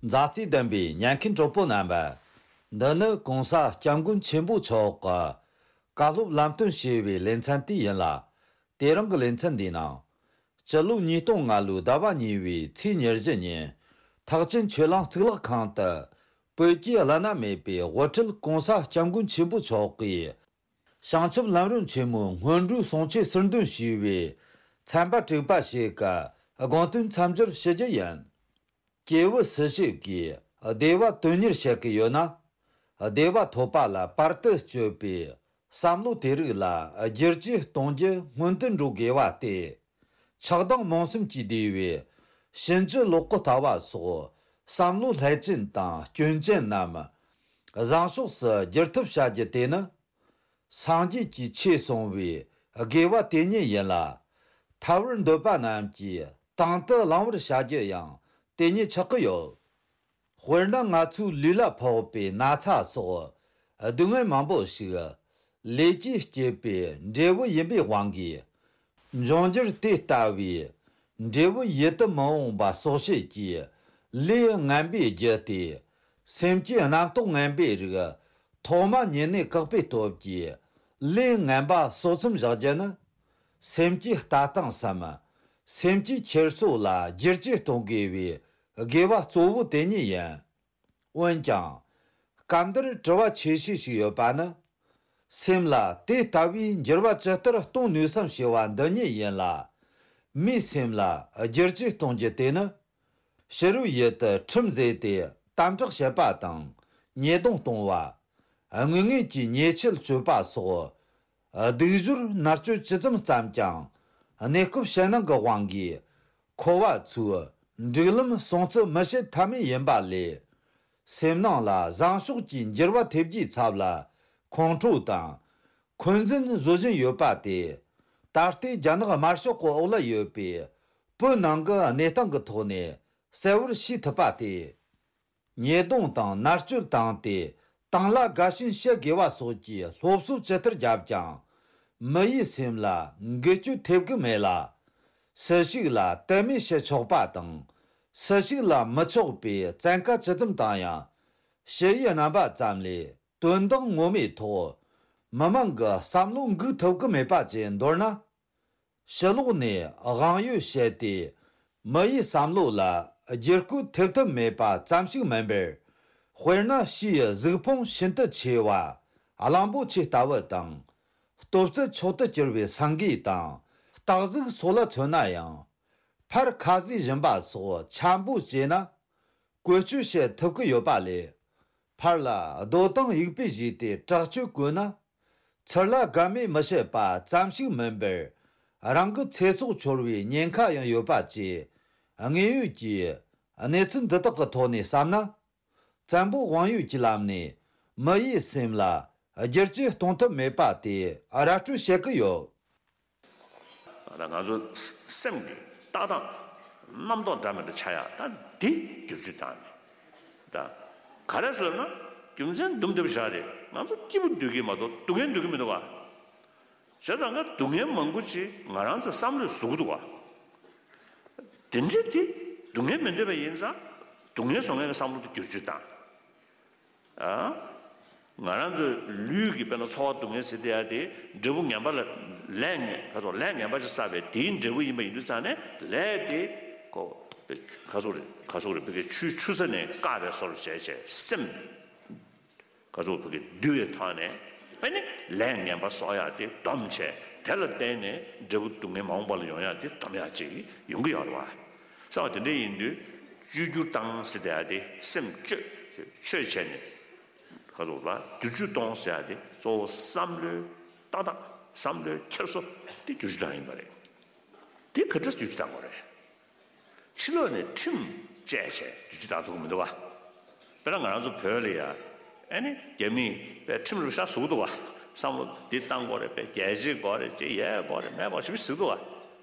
མཛའ་བརྩེ་ལྡན་པའི་ཉན་མཁན་གྲོགས་པོ་རྣམ་པ། འདི་ནི་༸གོང་ས་༸སྐྱབས་མགོན་ཆེན་པོ་མཆོག་གི་བཀའ་སློབ་ལམ་སྟོན་ཞེས་པའི་ལེ་ཚན་དེ་ཡིན་ལ། དེ་རིང་གི་ལེ་ཚན་འདིའི་ནང་། སྤྱི་ལོ་ཉིས་སྟོང་ལྔ་ལོའི་ཟླ་བ་གཉིས་པའི་ཚེས་ཉེར་བཞི་ཉིན། ཐེག་ཆེན་ཆོས་གླིང་གཙུག་ལག་ཁང་དུ། བོད་ཀྱི་བླ་ན་མེད་པའི་དབུ་ཁྲིད་༸གོང་ས་༸སྐྱབས་མགོན་ཆེན་པོ་མཆོག་གིས། བྱང་ཆུབ་ལམ་རིམ་ཆེན་མོའི་སྔོན་འགྲོའི་གསུང་ཆོས་ཟུར་འདོན་ཞུས་པའི་ཚན་པ་དྲུག་པ་ཞིག་གི་དགོངས་དོན་མཚམས་སྦྱོར་ཞུ་རྒྱུ་ཡིན། སྐྱེས་བུ་སུ་ཞིག་གིས་བདེ་བ་དོན་གཉེར་བྱེད་ཀྱི་ཡོད་ན། བདེ་བ་ཐོབ་པ་ལ་བར་དུ་གཅོད་པའི་བསམ་བློ་དེ་རིགས་ལ་བསྒྱུར་བཅོས་གཏོང་རྒྱུ་སྔོན་དུ་འགྲོ་དགོས་པ་སྟེ། ཆགས་སྡང་རྨོངས་གསུམ་གྱིས་བསྡུས་པའི་ཕྱིན་ཅི་ལོག་གི་ལྟ་བ་སོགས་བསམ་བློ་བསླད་ཅན་དང་སྐྱོན་ཅན་རྣམས་བཟང་ཕྱོགས་སུ་བསྒྱུར་ཐབས་བྱ་རྒྱུ་དེ་ནི། སངས་རྒྱས་ཀྱི་ཆོས་གསུང་བའི་དགེ་བ་དེ་ཉིད་ཡིན་ལ། ཐར་བར་འདོད་པ་རྣམས་ཀྱིས་དང་དུ་བླང་བར་བྱ་རྒྱུ་ཡང་དེ་ཉིད་ཆགས་ཀྱི་ཡོད། དཔེར་ན། ང་ཚོའི་ལུས་ལ་ཕོག་པའི་ན་ཚ་སོགས་སྡུག་བསྔལ་མང་པོ་ཞིག་ལས་ཀྱིས་བསྐྱེད་པའི་འབྲས་བུ་ཡིན་པའི་དབང་གིས། འབྱུང་འགྱུར་དེ་ལྟ་བུའི་འབྲས་བུ་ཡིད་དུ་མི་འོང་བ་སོགས་བྱེད་ཀྱི་ལས་ངན་པའི་རྒྱུ་སྟེ། སེམས་ཀྱི་རྣམ་རྟོག་ངན་པའི་རིགས་ཐོག་མ་ཉིད་ནས་བཀག་པའི་སྟོབས་ཀྱིས་ལས་ངན་པ་གསོག་མཚམས་བཞག་རྒྱུ་ནི། སེམས་ཀྱི་ལྟ་སྟངས་སམ། སེམས་ཀྱི་འཁྱེར་སོ་ལ་བསྒྱུར་བཅོས་གཏོང་དགོས་པའི་དགོས་པ་གཙོ་བོ་དེ་ཉིད་ཡིན། འོན་ཀྱང་། སྐབས་འདིར་དྲི་བ་ཆེ་ཤོས་ཤིག་ཡོད་པ་ནི། སེམས་ལ་དེ་ལྟ་བུའི་འགྱུར་བ་ཇི་ལྟར་གཏོང་ནུས་སམ་ཞེས་པ་འདི་ཉིད་ཡིན་ལ། མིའི་སེམས་ལ་བསྒྱུར་བཅོས་གཏོང་རྒྱུ་དེ་ནི། ཕྱི་རོལ་ཡུལ་དུ་ཁྲིམས་བཟོས་ཏེ་དམ་དྲག་བྱེད་པ་དང་ཉེས་རྡུང་གཏོང་བ། དངོས་ངེས་ཀྱི་ཉེས་ཆད་གཅོད་པ་སོགས། སྡིག་སྦྱོར་མནར་གཅོད་ཇི་ཙམ་བརྩམས་ཀྱང་། གནས་སྐབས་ཕྱི་ནང་གི་དབང་གིས། འཁོར་བ་ཚོའི་སྒྲིག་ལམ་སྲུང་བརྩི་མི་བྱེད་ཐབས་མེད་ཡིན་པ་ལས། སེམས་ནང་ལ་བཟང་ཕྱོགས་ཀྱི་འགྱུར་བ་ཐེབས་རྒྱུའི་ཚབ་ལ་ཁོང་ཁྲོ་དང་འཁོན་འཛིན་བཟོ་བཞིན་ཡོད་པ་དེ། ད་ལྟའི་རྒྱ་ནག་དམར་ཤོག་གི་འོག་ལ་ཡོད་པའི་བོད་ནང་གི་གནས་སྟངས་ཀྱི་ཐོག་ནས་གསལ་བོར་ཤེས་ཐུབ་པ་སྟེ། ཉེས་རྡུང་དང་མནར་གཅོད་བཏང་སྟེ་དང་བླངས་དགའ་ཞེན་བྱེད་དགོས་པ་སོགས་ཀྱི་སློབ་གསོ་ཇི་ལྟར་བརྒྱབ་ཀྱང་། མི་ཡི་སེམས་ལ་འགུལ་སྐྱོད་ཐེབས་ཀྱི་མེད་ལ། སུ་ཞིག་ལ་དད་མོས་བྱེད་ཆོག་པ་དང་། སུ་ཞིག་ལ་མི་ཆོག་པའི་བཙན་བཀའ་ཇི་ཙམ་བཏང་ཡང་། ཞུ་ཡིག་རྣམ་པ་ཙམ་ལས་དོན་དག་ངོ་མའི་ཐོག་མི་མང་གི་བསམ་བློ་འགུག་ཐུབ་ཀྱི་མེད་པ་བཅས་མདོར་ན། ཕྱི་ལོགས་ནས་དབང་ཡོད་བཤད་དེ། མི་ཡི་བསམ་བློ་ལ་བསྒྱུར་བཀོད་ཐེབས་ཐབས་མེད་པ་ཙམ་ཞིག་མིན་པར། དཔེར་ན། ཕྱིའི་གཟུགས་ཕུང་ཤིན་ཏུ་ཆེ་བ། གླང་པོ་ཆེ་ལྟ་བུ་དང་། ལྟོ་ཚད་མཆོག་ཏུ་གྱུར་པའི་སེང་གེ་དང་། སྟག་གཟིག་སོགས་ལ་མཚོན་ན་ཡང་། ཕར་ཁ་ཟས་སྦྱིན་པ་སོགས་འཆམ་པོ་བྱས་ན། བཀོལ་སྤྱོད་བྱེད་ཐུབ་ཀྱི་ཡོད་པ་ལས། ཕར་ལ་རྡོ་དང་ཡུག་པས་བཞུས་ཏེ་དྲག་སྤྱོད་བཀོལ་ན། ཚུར་ལ་དགའ་མོས་མི་བྱེད་པ་ཙམ་ཞིག་མིན་པར། རང་གི་ཚེ་སྲོག་འཆོར་བའི་ཉེན་ཁ་ཡང་ཡོད་པ་བཅས། དངོས་ཡོད་ཀྱི་གནས་ཚུལ་འདི་དག་གི་ཐོག་ནས་བསམ་ན། བཙན་པོ་དབང་ཡོད་ཀྱི་ལམ་ནས་མི་ཡི་སེམས་ལ་བསྒྱུར་བཅོས་གཏོང་ཐབས་མེད་པ་དེ་ར་སྤྲོད་བྱེད་ཀྱི་ཡོད། ད་ང་ཚོ་སེམས་ཀྱི་ལྟ་སྟངས་རྣམ་རྟོག་འདྲ་མི་འདྲ་ཆགས་ཡ་ད་འདི་བསྒྱུར་བཅོས་བཏང་ནས་ད་ག་རེ་ཟེར་ན་རྒྱུ་མཚན་འདུམ་འདེབས་བཞག་རེད། ང་ཚོ་སྐྱིད་པོ་སྡོད་ཀྱི་མ་གཏོགས་སྡུག་བསྔལ་སྡོད་ཀྱི་མི་འདུག་བ། བྱས་ཙང་ཀ་སྡུག་བསྔལ་མང་པོ་ཅིག་ང་རང་ཚོའི་བསམ་བློས་བཟོ་གི་འདུག་བ། དེ་འདྲ་དེ་སྡུག་བསྔལ་མི་འདོད་པ་ཡིན་ཙང་སྡུག་བསྔལ་བཟོ་མཁན་གྱི་བསམ་བློ་དེ་བསྒྱུར་བཅོས་བཏང་། ཨ། ང་རང་ཚོའི་ལུས་ཀྱི་དཔེར་ན་ཚོར་བ་སྡུག་བསྔལ་ཟེར་དེ་ཡ་དེ་འབྲས་བུ་ངན་པ་ལ་ལས་ངན་ཁ་སོགས་ལས་ངན་པ་ཅིག་བསགས་པའི་དེའི་འབྲས་བུ་ཡིན་པ་ཡིན་དུས་ཙང་ནས་ལས་དེ་ཁོ། ཁ་སོག་རེད། ཁ་སོག་རེད། ཕ་གི་ཆུའི་ཆུ་ས་ནས་བཀག་པའི་བཟོ་འདྲ་བྱས་བྱས་སེམས། ཁ་སོག་ཕ་གི་འདུལ་བའི་ཐོག་ནས་ཨ་ནི་ལས་ངན་པ་གསོག་ཡག་དེ་སྡོམ་བྱས། དེ་ལ་བརྟེན་ནས་འབྲས་བུ་སྡུག་བསྔལ་མ་འོངས་པ་ལ་ཡོང་ཡག་དེ་སྡོམ་ཡག་ཅིག་ཡོང་གི་ཡོད་རེད་བ། བསམ་པ་དེ་འདྲ་ཡིན་དུས་བཅོས་བསྒྱུར་བཏང་ཟེར་བསྡད་ཡག་དེ་སེམས་བཅོས་བཅོས་བྱས་ནས། ཁ་སོག་ལ་བསྒྱུར་བཅོས་གཏོང་ཟེར་ཡག་དེ་གཙོ་བོ་བསམ་བློའི་ཏག་ཏག་བསམ་བློའི་འཁྱེར་སོ་དེ་བསྒྱུར་བཅོས་བཏང་ཡིན་པ་རེད། དེ་ག་འདྲ་བསྒྱུར་བཅོས་བཏང་དགོས་རེད། ཕྱི་ལོགས་ནས་ཁྲིམས་བཅད་བྱས་བསྒྱུར་བཅོས་བཏང་ཐུབ་ཀྱི་མི་འདུག་བ། དཔེར་ན་ང་རང་ཚོ་བོད་ལ་ཡ། ཨ་ནི་རྒྱ་མིས་པའི་ཁྲིམས་ལ་ཤ་ཟུག་འདུག་བ། བསམ་བློ་འདི་བཏང་དགོས་རེད། པའི་རྒྱལ་གཅེས་དགོས་རེད། ཅེས་ཡས་དགོས་རེད། མེད་དགོས་ཞིབ་ཞིབ་ཟིག་འདུག་བ།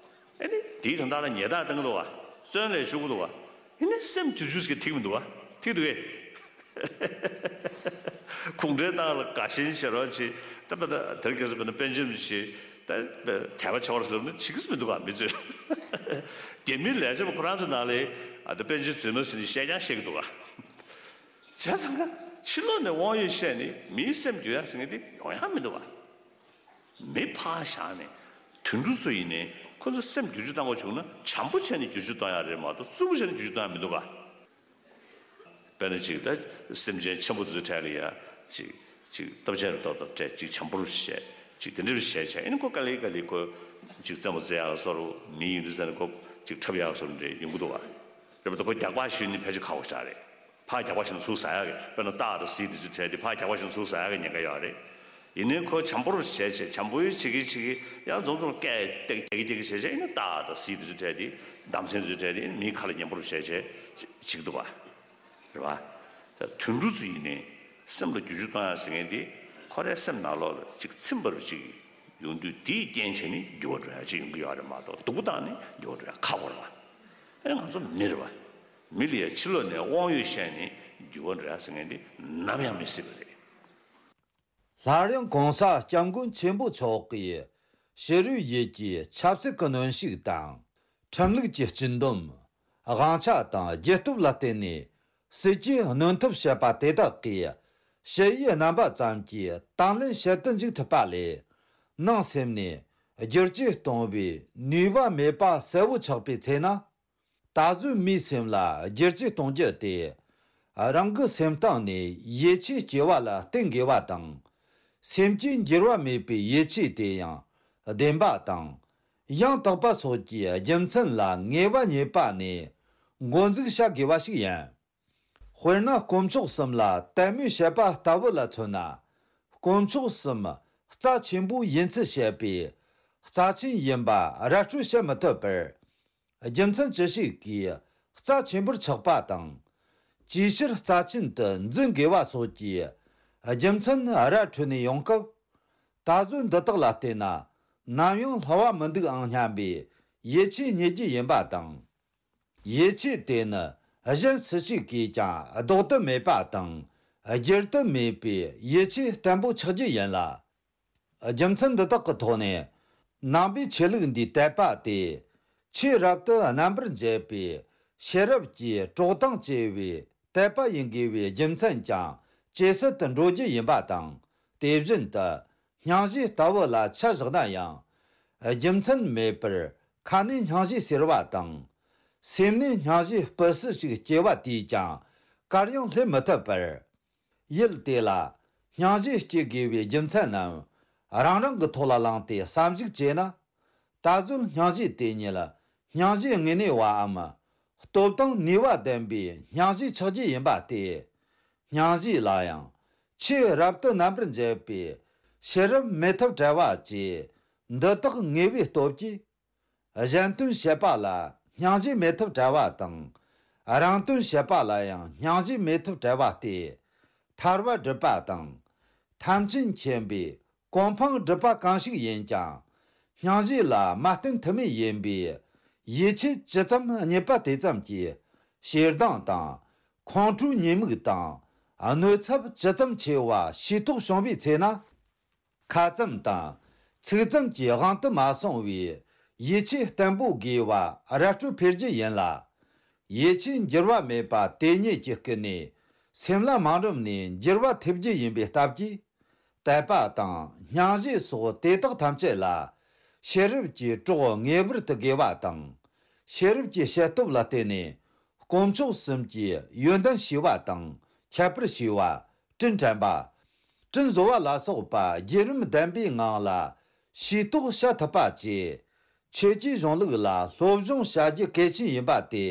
ཨ་ནི་དེའི་དོན་དག་ལ་ཉེས་རྡུང་བཏང་གི་འདུག་བ། བཙོན་ལ་བཅུག་གི་འདུག་བ། ཨ་ནི་སེམས་བསྒྱུར་བཅོས་ཟིག་ཐིག་མི་འདུག་བ། ཐིག་འདུག་གས། གུང་ཁྲན་ཏང་ལ་དགའ་ཞེན་བྱེད་རོགས་བྱེད། ད་པ་ད་དེར་སྐྱེས་སུ་པ་ན་པཎ་ཆེན་བྱེད། ད་དད་པ་ཆེ་བར་སླེབས་ན་བྱེད་ཀྱི་མི་འདུག་ག་མི་ཚོས། རྒྱ་མིའི་ལས་བྱེད་པ་ཁོ་རང་ཚོ་ནང་ལ་ཨ་ད་པཎ་ཆེན་རྫུན་མ་ཟེར་ནས་བཤད་ཀྱང་བཤད་ཀྱི་འདུག་ག་བྱས་ཙང་ཕྱི་ལོགས་ནས་དབང་ཡོད་བཤད་ནས་མིའི་སེམས་འགྱུར་ཡག་ཟེར་མཁན་དེ་ཡོང་ཡག་མི་འདུག་ག་མི་ཕར་བཞག་ནས་དུད་འགྲོ་ཚོ་ཡིན་ནའི་ཁོ་ཚོ་སེམས་བསྒྱུར་བཅོས་གཏོང་དགོས་བྱུང་ན་བྱམས་པོ་བྱས་ནས་བསྒྱུར་བཅོས་གཏོང་ཡག་རེད་མ་གཏོགས་རྩུབ་པོ་བྱས་ནས་བསྒྱུར་བཅོས་གཏོང་ཡག་མི་འདུག་ག་དཔེར་ན་ཅིག་ད་སེམས་ཅན་ཆེན་པོ་དེ་ཚོའི་གྲས་ལ་ཡ་ཅིག་ཅིག་སྟོབས་ཆེན་རེ་ཏོག་ཏོག་སྤྲད། ཅིག་བྱམས་པོ་རུ་བྱས། ཅིག་དེ་འདྲ་རུ་བྱས་བྱས་ཨ་ནི་ཁོ་ག་ལེ་ག་ལེ་ཁོ་ཅིག་རྩེད་མོ་རྩེ་ཡག་བཟོ་འདྲ་མི་ཡིན་དུས་ཙང་ནས་ཁོ་ཅིག་འཁྲབ་ཡག་བཟོ་འདྲ་ཡོང་གི་འདུག་བ། རེད་མ་གཏོགས་ཁོ་རྒྱག་པ་ཞུས་ནས་ཕལ་ཆེར་ཁག་པོ་ཞིག་རེད། ཕར་རྒྱག་པ་ཞིག་ཚུར་ཟ་ཡག་གི་དཔེར་ན་སྟག་དང་གཟིག་དེ་ཚོའི་གྲས་དེ་ཕར་རྒྱག་པ་ཞིག་ཚུར་ཟ་ཡག་གི་ཉེན་ཁ་ཡོད་རེད། ཡིན་ནའི་ཁོ་བྱམས་པོ་རུ་བྱས་བྱས་བྱམས་པོ་ཡི་བྱེད་ཀྱི་བྱེད་ཀྱི་ཡང་རྫོང་རྫོང་སྐད་སྟེགས་སྟེགས་སྟེགས་བྱས་བྱས་ཨ་ནི་སྟག་དང་གཟིག་དེ་ཚོའི་གྲས་དེ་འདམ་ཚན་ཚོའི་གྲས་དེ་ཨ་ནི་མིའི་ཁ་ལ་ཉན་པོ་རུ་བྱས་བྱས་བྱེད་ཀྱི་འདུག་བ། རེད་བ། ད་དུད་འགྲོ་ཚོ་ཡིན་ནའི་སེམས་ལ་བསྒྱུར་བཅོས་གཏོང་ཡག་ཟེར་མཁན་དེ་ཁོ་རའི་སེམས་ནང་ལོགས་ལ་ཅིག་ཚིམ་པ་རུ་ཅིག་ཡོང་དུས་དེའི་རྐྱེན་བྱས་ནས་འགྱུར་བ་འགྲོ་ཡག་ཅིག་ཡོང་གི་ཡོད་རེད་མ་གཏོགས་སྡུག་པོ་བཏང་ནས་འགྱུར་བ་འགྲོ་ཡག་ཁག་པོ་རེད་བ། ཨེ་ང་ཚོ་མི་རེད་བ། མི་ལ་ཡ་ཕྱི་ལོགས་ནས་དབང་ཡོད་བཤད་ནས་འགྱུར་བ་འགྲོ་ཡག་ཟེར་མཁན་དེ་ནམ་ཡང་མི་སྲིད་པ་རེད། སླར་ཡང་གོང་ས་སྐྱབས་མགོན་ཆེན་པོ་མཆོག་གིས་ཕྱི་རོལ་ཡུལ་གྱི་ཆབ་སྲིད་ཀྱི་གནོན་ཤུགས་དང་། ཁྲིམས་ལུགས་ཀྱི་སྤྱི་འདོམས། དབང་ཆ་དང་རྒྱུ་སྟོབས་ལ་བརྟེན་ནས་སྲིད་ཇུས་གནོན་ཐབས་བྱེད་པ་དེ་དག་གིས་ཞི་བའི་རྣམ་པ་ཙམ་གྱིས་དང་ལེན་བྱེད་དུ་འཇུག་ཐུབ་པ་ལས། ནང་སེམས་ནས་བསྒྱུར་བཅོས་གཏོང་བའི་ནུས་པ་མེད་པ་གསལ་བོ་ཆགས་པའི་ཚེ་ན། ད་གཟོད་མིའི་སེམས་ལ་བསྒྱུར་བཅོས་གཏོང་རྒྱུ་དེ། རང་གི་སེམས་གཏིང་ནས་ཡིད་ཆེས་སྐྱེ་བ་ལ་བརྟེན་དགོས་པ་དང་། སེམས་ཀྱི་འགྱུར་བ་མེད་པའི་ཡིད་ཆེས་དེ་ཡང་བདེན་པ་དང་། ཡང་དག་པ་སོགས་ཀྱི་རྒྱུ་མཚན་ལ་ངེས་པ་རྙེད་པ་ནས་འགོ་འཛུགས་བྱ་དགོས་པ་ཞིག་ཡིན། དཔེར་ན་དཀོན་མཆོག་གསུམ་ལ་དད་མོས་བྱེད་པ་ལྟ་བུ་ལ་མཚོན་ན། དཀོན་མཆོག་གསུམ་རྩ་ཆེན་པོ་ཡིན་ཚུལ་བཤད་པའི་རྩ་ཆེན་ཡིན་པ་ར་སྤྲོད་བྱེད་མི་ཐུབ་པར། རྒྱུ་མཚན་ཅི་ཞིག་གིས་རྩ་ཆེན་པོར་ཆགས་པ་དང་། ཅིའི་ཕྱིར་རྩ་ཆེན་དུ་འཛིན་དགོས་པ་སོགས་ཀྱི་རྒྱུ་མཚན་ར་འཕྲོད་ནས་ཡོང་སྐབས། ད་གཟོད་འདི་དག་ལ་བལྟས་ན་ནམ་ཡང་སླ་བ་མི་འདུག་ཨང་སྙམ་པའི་ཡིད་ཆེས་རྙེད་རྒྱུ་ཡིན་པ་དང་། ཡིད་ཆེས་དེ་ནི་གཞན་སུ་ཞིག་གིས་ཀྱང་ལྡོག་ཏུ་མེད་པ་དང་བསྒྱུར་དུ་མེད་པའི་ཡིད་ཆེས་བརྟན་པོ་ཆགས་རྒྱུ་ཡིན་ལ། རྒྱུ་མཚན་འདི་དག་གི་ཐོག་ནས་ནང་པའི་ཆོས་ལུགས་འདིའི་དད་པ་དེ་ཆོས་རབ་ཏུ་རྣམ་པར་འབྱེད་པའི་ཤེས་རབ་ཀྱི་གྲོགས་དང་བཅས་པའི་དད་པ་ཡིན་དགོས་པའི་རྒྱུ་མཚན་ཀྱང་ཇེ་གསལ་དུ་འགྲོ་རྒྱུ་ཡིན་པ་དང་། དེ་བཞིན་དུ་སྙིང་རྗེ་ལྟ་བུ་ལ་ཆ་བཞག་ན་ཡང་། རྒྱུ་མཚན་མེད་པར་ཁ་ནས་སྙིང་རྗེ་ཟེར་བ་དང་། སེམས་ནས་སྙིང་རྗེ་སྤུ་སྲིད་ཞིག་སྐྱེ་བ་དེས་ཀྱང་གར་ཡང་སླེབས་མི་ཐུབ་པར། ཡུལ་དེ་ལ་སྙིང་རྗེ་སྐྱེ་དགོས་པའི་རྒྱུ་མཚན་རྣམས་རང་རང་གི་ཐོག་ལ་བླངས་ཏེ་བསམ་གཞིག་བྱས་ན། ད་གཟོད་སྙིང་རྗེ་དེ་ཉིད་སྙིང་རྗེ་དངོས་གནས་པའམ་སྟོབས་དང་ནུས་པ་ལྡན་པའི་སྙིང་རྗེ་ཆགས་རྒྱུ་ཡིན་པ་སྟེ། སྙིང་རྗེ་ལ་ཡང་ཆོས་རབ་ཏུ་རྣམ་པར་འབྱེད་པའི་ཤེས་རབ་མེད་ཐབས་བྲལ་བ་བཅས་འདི་དག་ངེས་པའི་སྟོབས་ཀྱིས། གཞན་དོན་བྱེད་པ་ལ་སྙིང་རྗེ་མེད་ཐབས་བྲལ་བ་དང་། རང་དོན་བྱེད་པ་ལ་ཡང་སྙིང་རྗེ་མེད་ཐབས་བྲལ་བ་སྟེ། ཐར་པ་སྒྲུབ་པ་དང་། ཐམས་ཅད་མཁྱེན་པའི་གོ་འཕང་སྒྲུབ་པ་གང་ཞིག་ཡིན་ཀྱང་། སྙིང་རྗེ་ལ་མ་བརྟེན་ཐབས་མེད་ཡིན་པས། ཡིད་ཆེས་ཇི་ཙམ་རྙེད་པ་དེ་ཙམ་གྱིས་ཞེ་སྡང་དང་། ཁོང་ཁྲོའི་ཉེས་དམིགས་དང་། གནོད་ཚབས་ཇི་ཙམ་ཆེ་བ་ཤེས་རྟོགས་བྱུང་བའི་ཚེ་ན། ཁ་ཙམ་དང་ཚིག་ཙམ་གྱི་དབང་དུ་མ་སོང་བའི་ཡིད་ཆེས་བརྟན་པོ་དགོས་པ་ར་སྤྲོད་འཕེལ་རྒྱུ་ཡིན་ལ། ཡིད་ཆེས་འགྱུར་བ་མེད་པ་དེ་ཉིད་ཀྱིས་ཀུན་ནས་སེམས་ལ་མ་རུངས་ནས་འགྱུར་བ་ཐེབས་རྒྱུ་ཡིན་པའི་སྟབས་ཀྱིས། དད་པ་དང་སྙིང་རྗེ་སོགས་དེ་དག་ཐམས་ཅད་ལ་ཤེས་རབ་ཀྱི་གྲོགས་ངེས་པར་དུ་དགོས་པ་དང་། ཤེས་རབ་ཀྱི་བཤད་སྟོབས་ལ་བརྟེན་ནས་དཀོན་མཆོག་གསུམ་གྱི་ཡོན་ཏན་ཞི་བ་དང་ཁྱད་པར་ཞི་བ། དྲིན་དྲན་པ། དྲིན་གཟོ་བ་ལ་སོགས་པ་བརྒྱུད་རིམ་ལྡན་པའི་ངང་ལ་ཤེས་རྟོགས་བྱ་ཐུབ་པ་བཅས། ཆོས་ཀྱི་གཞུང་ལུགས་ལ་སློབ་སྦྱོང་བྱ་རྒྱུ་གལ་ཆེན་ཡིན་པ་དེ་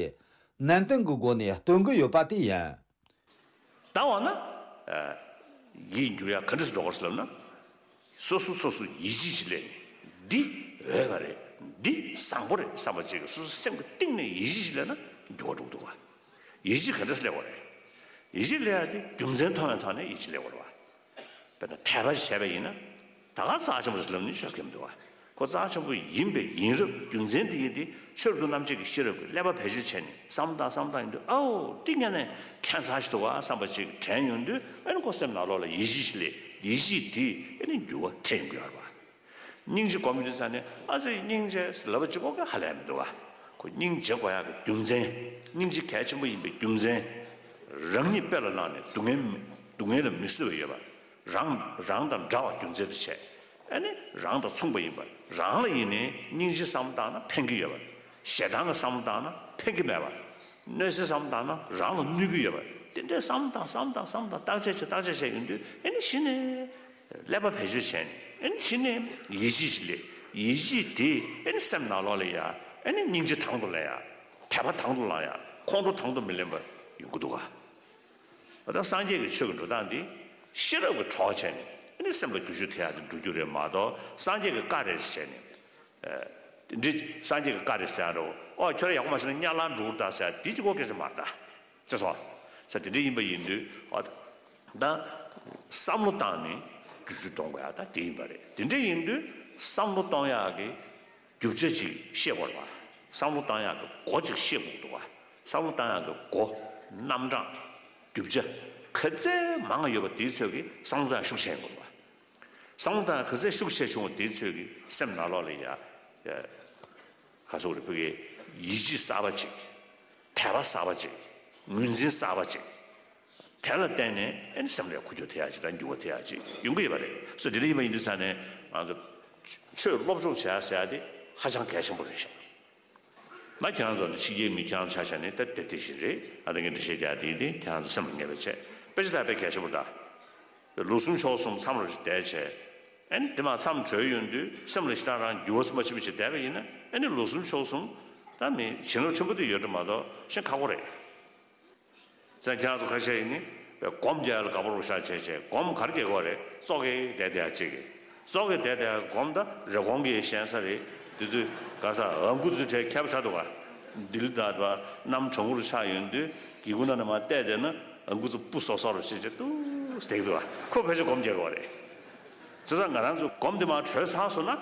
ནན་ཏན་གྱི་སྒོ་ནས་སྟོན་གྱི་ཡོད་པ་དེ་ཡིན། ད་འོ་ན། ཨ། ཡིད་འགྱུར་ཡ་ག་འདྲས་སུ་འགྲོ་གི་རེད་ཟེར་ལབ་ན། སོ་སོ་སོ་སོ་ཡིད་ཆེས་ཤིག་སླེབས་ནས་འདི་འོས་པ་རེད། འདི་བཟང་པོ་རེད་བསམ་པ་ཅིག་གི་སོ་སོ་སེམས་ཀྱི་གཏིང་ནས་ཡིད་ཆེས་ཤིག་སླེབས་ན་འགྱུར་བ་འགྲོ་གི་འདུག་ག། ཡིད་ཆེས་ག་འདྲས་སླེབས་པ་རེད། ཡིད་ཆེས་སླེབས་ཡ་དེ་རྒྱུ་མཚན་མཐོང་བའི་ཐོག་ནས་ཡིད་ཆེས་སླེབས་པ་རེད་བ། དཔེར་ན་དད་པ་ཞིག་བྱས་པ་ཡིན་ན། ད་ག་རྩ་ཆེན་པོ་ཞིག་ལབ་ནས་ཤོད་མཁན་མི་འདུག་བ། ཁོ་རྩ་ཆེན་པོ་ཡིན་པའི་ཡིན་རབས་རྒྱུ་མཚན་དེ་ཡིན་ཏེ་ཆོས་རབ་ཏུ་རྣམ་འབྱེད་ཀྱི་ཤེས་རབ་ཀྱིས་ཀླད་པ་བེད་སྤྱོད་བྱས་ནས་བསམ་བློ་བཏང་བསམ་བློ་བཏང་ཡིན་དུས་ཨའོ་འདི་ངས་ནས་ཁྱད་མཚར་ཞིག་འདུག་བ་བསམ་པ་ཅིག་དྲན་ཡོང་དུས་ཨ་ནི་ཁོ་སེམས་ནང་ལོགས་ལ་ཡིད་ཆེས་ཤིག་སླེབས། ཡིད་ཆེས་དེས་ཨ་ནི་འགྱུར་བ་ཐེབས་ཡོང་གི་ཡོད་རེད་བ། སྙིང་རྗེ་སྒོམ་ཡོང་དུས་ཙང་ནས་ཨ་ཙི་སྙིང་རྗེ་ཟེར་ལབ་པ་གཅིག་པོ་གིས་ཧ་ལས་མི་འདུག་བ། ཁོ་སྙིང་རྗེ་དགོས་ཡག་གི་རྒྱུ་མཚན། སྙིང་རྗེ་གལ་ཆེན་པོ་ཡིན་པའི་རྒྱུ་མཚན། རང་ཉིད་དཔེ་ལ་བླངས་ནས་སྡུག་བསྔལ་མི་སྡུག་བསྔལ་ལ་མི་བཟོད་པ་ཡོད་པ། རང་རང་དང་འདྲ་བ་རྒྱུ་མཚན་དུ་བྱས། ཨ་ནི་རང་དང་མཚུངས་པ་ཡིན་པ། རང་ལ་ཡིན་ནའི་སྙིང་རྗེ་བསམ་བློ་བཏང་ན་ཕན་གྱི་ཡོད་པ། ཞེ་སྡང་གི་བསམ་བློ་བཏང་ན་ཕན་གྱི་མེད་པ། གནོད་འཚེ་བསམ་བློ་བཏང་ན་རང་ལ་གནོད་ཀྱི་ཡོད་པ། དེ་འདྲའི་བསམ་བློ་བཏང་བསམ་བློ་བཏང་བསམ་བློ་བཏང་བརྟག་དཔྱད་བྱས་བརྟག་དཔྱད་བྱས་ཡོང་དུས་ཨ་ནི་གཞི་ནས་ཀླད་པ་བེད་སྤྱོད་བྱས་ནས་ཨ་ནི་གཞི་ནས་ཡིད་ཆེས་ཤིག་སླེབས། ཡིད་ཆེས་དེ་ཨ་ནི་སེམས་ནང་ལོགས་ལ་ཡ་ཨ་ནི་སྙིང་རྗེ་དང་དུ་ལེན་ཡ། དད་པ་དང་དུ་བླང་ཡ། ཁོང་ཁྲོ་དང་དུ་མི་ལེན་པ་ཡོང་གི་འདུག་ག། ད་སངས་རྒྱས་ཀྱི་ཆོས་ཀྱི་འགྲོ་སྟངས་འདི་ཤེས་རབ་ཀྱི་གྲོགས་བྱས་ནས་ཨ་ནི་སེམས་ལ་བསྒྱུར་བཅོས་ཐེབས་ཡག་དེ་འགྲོ་རྒྱུ་རེད་མ་གཏོགས་སངས་རྒྱས་ཀྱི་བཀའ་རེད་བྱས་ནས། ཨ། དེ་འདྲའི་སངས་རྒྱས་ཀྱི་བཀའ་རེད་ཟེར་ཡག་འགྲོ། ཨོ་ཁྱོད་རང་ཡག་པོ་མ་བྱས་ན་དམྱལ་བར་འགྲོ་གི་རེད་ད་ཟེར་ཡག་དེ་གཅིག་པོ་སྐད་ཆ་མ་རེད་ད། ཅེས་སོ། ས་དེ་འདྲ་ཡིན་པ་ཡིན་དུས་ཨ། ད་བསམ་བློ་བཏང་ནས་བསྒྱུར་བཅོས་གཏོང་དགོས་ཡག་ད་དེ་ཡིན་པ་རེད། དེ་འདྲ་ཡིན་དུས་བསམ་བློ་གཏོང་ཡག་གི་རྒྱུ་ཆ་ཅིག་ཤེས་དགོས་རེད་བ། བསམ་བློ་བཏང་ཡག་གི་སྒོ་ཅིག་ཤེས་དགོས་འདུག་བ། བསམ་བློ་བཏང་ཡག་གི་སྒོ། རྣམ་གྲངས། རྒྱུ་ཆ། ག་ཚད་མང་ཡོད་པ་དེའི་ཚོད་ཀྱིས་བསམ་བློ་བཏང་ཡག་ཤུགས་ཆེན་དགོས་རེད་བ། བསམ་བློ་བཏང་ག་ཚད་ཤུགས་ཆེ་བྱུང་བ་དེའི་ཚོད་ཀྱིས་སེམས་ནང་ལོགས་ལ་ཡ། ཡ། ག་ཚོད་རེད་བོད་ཀྱི་ཡིད་ཆེས་གསར་པ་ཅིག་དད་པ་གསར་པ་ཅིག་ངོས་འཛིན་གསར་པ་ཅིག་དེ་ལ་བརྟེན་ནས་ཨ་ནི་སེམས་ལ་འགུལ་སྐྱོད་ཐེབས་ཡག་ཅིག་དང་འགྱུར་བ་ཐེབས་ཡག་ཅིག་ཡོང་གི་ཡོད་པ་རེད། སོ་དེ་འདྲ་ཡིན་པ་ཡིན་དུས་ཙང་ནས་ང་ཚོ་ཆོས་སློབ་སྦྱོང་བྱེད་ཡག་ཟེར་ཡག་དེ་ཧ་ཅང་གལ་ཆེན་པོ་རེད་ཤག་ང་ཁྱེད་རང་ཚོ་ཕྱི་རྒྱལ་མི་ཁྱེད་རང་ཚོ་ཆ་བཞག་ནས་ད་དེ་དེ་བཞིན་རེད། ཨ་ད་ངས་འདི་བཤད་རྒྱུ་དེ་དེ་ཁྱེད་རང་ཚོ་སེམས་ལ་ངེས་པ་བྱས། དཔེ་ཆ་ད་དཔེ་གལ་ཆེན་པོ་ད། ལོ་གསུམ་ཕྱོགས་གསུམ་མཚམས་རེ་བསྡད་བྱས། ཨ་ནི་དེ་མ་མཚམས་གྲོལ་ཡོང་དུས་སེམས་ལ་ཞེ་དྲག་རང་འགྱུར་བ་ཙམ་མ་ཕྱིན་པ་ཞིག་བསྡད་པ་ཡིན་ན་ཨ་ནི་ལོ་གསུམ་ཕྱོགས་གསུམ་ད་མི་བྱིན་རླབས་ཆེན་པོ་དེ་ཡོད་འགྲོ་མ་གཏོགས་ཤེས་ཁག་པོ་རེད། ས་ཁྱེད་རང་ཚོ་ཁ་ཤས་ཡིན་ནི་སྒོམ་རྒྱག་ཡ་ལ་དགའ་པོ་རུ་ཤ་བྱས་བྱས་སྒོམ་ག་རེ་རྒྱག་གི་ཡོད་རེད། ཙོག་གེ་བསྡད་བསྡད་ཡ་གཅིག་གིས། ཙོག་གེ་བསྡད་བསྡད་ཡ་སྒོམ་ད་རེབ་གོང་གི་ཞན་ས་རེད། དེ་ཚོས་ག་ས་ཨ་ཁུ་ཚོས་གྲས་ཁྱབ་ཆགས་འདུག་ག། ལྡི་ལི་ད་དུ་བ་གནམ་གྲང་མོ་རུ་ཆགས་ཡོང་དུས་སྒེའུ་ཁུང་ནང་ནས་མར་བལྟས་བསྡད་ན་ཨ་ཁུ་ཚོ་སྤུ་སོག་སོག་རུ་བྱས་བྱས་ཏུས་བསྡད་འདུག་ག། ཁོ་ཕལ་ཆེར་སྒོམ་རྒྱག་གི་ཡོད་རེད། བྱས་ཙང་ང་རང་ཚོ་སྒོམ་དེ་མར་གྲོལ་ཚར་སོང་ན།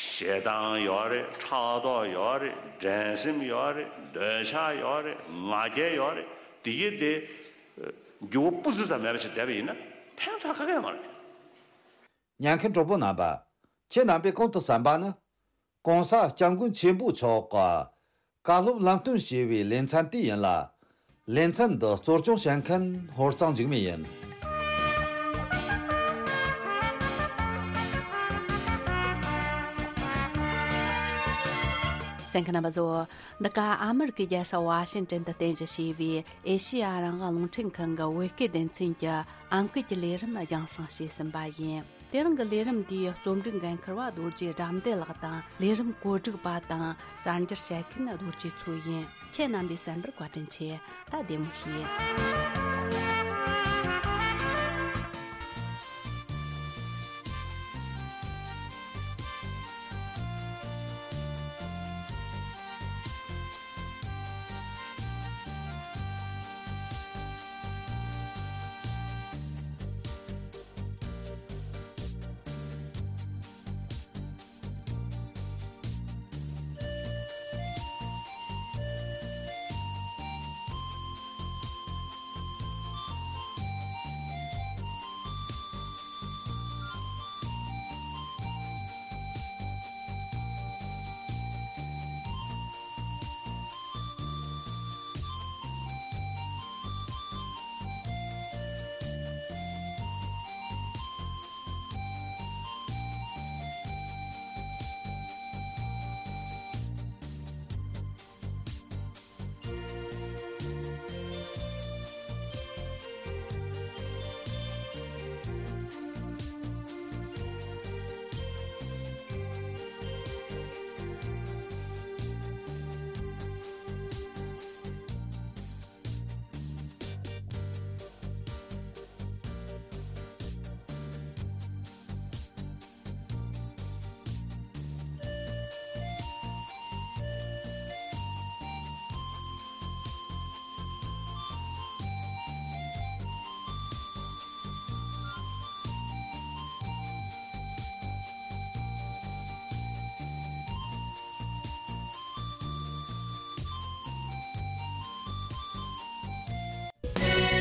ཞེ་སྡང་ཡོད་རེད། ཕྲག་དོག་ཡོད་རེད། འགྲན་སེམས་ཡོད་རེད། འདོད་ཆགས་ཡོད་རེད། ང་རྒྱལ་ཡོད་རེད། དེ་གྱིས་དེ་འགྱུར་བ་སྤུ་ཙམ་ཙམ་མེད་པ་ཞིག་བསྡད་པ་ཡིན་ན་ཕན་ཐོགས་ག་གེ་ཡོད་མ་རེད། ཉན་མཁན་གྲོགས་པོ་རྣམ་པ། ཁྱེད་རྣམ་པས་གོང་དུ་གསན་པ་ནི། ྋགོང་ས་ྋསྐྱབས་མགོན་ཆེན་པོ་མཆོག་གི་བཀའ་སློབ་ལམ་སྟོན་ཞེས་པའི་ལེ་ཚན་དེ་ཡིན་ལ། ལེ་ཚན་འདི་གཙོ་སྐྱོང་བྱེད་མཁན་ཧོར་གཙང་འཇིགས་མེད་ཡིན། གསན་མཁན་རྣམ་པ་ཚོ། འདི་ག་ཨ་མི་རི་ཀའི་རྒྱལ་ས་ཝ་ཤིང་ཏན་དུ་རྟེན་གཞི་བྱས་པའི་ཨེ་ཤེ་ཡ་རང་དབང་རླུང་འཕྲིན་ཁང་གི་བོད་སྐད་སྡེ་ཚན་གྱི་ཨང་ཀི་གི་ལས་རིམ་རྒྱང་སྲིང་བྱས་ཟིན་པ་ཡིན། དེ་རིང་གི་ལས་རིམ་འདིའི་རྩོམ་སྒྲིག་འགན་འཁུར་བ་རྡོ་རྗེ་དགྲ་འདུལ་ལགས་དང་། ལས་རིམ་གོ་སྒྲིག་པ་དང་གསར་འགྱུར་བཤད་མཁན་རྡོ་རྗེ་མཚོ་ཡིན། ཁྱེད་རྣམ་པས་གསན་པར་བཀའ་དྲིན་ཆེ། ད་བདེ་མོ་བྱོས།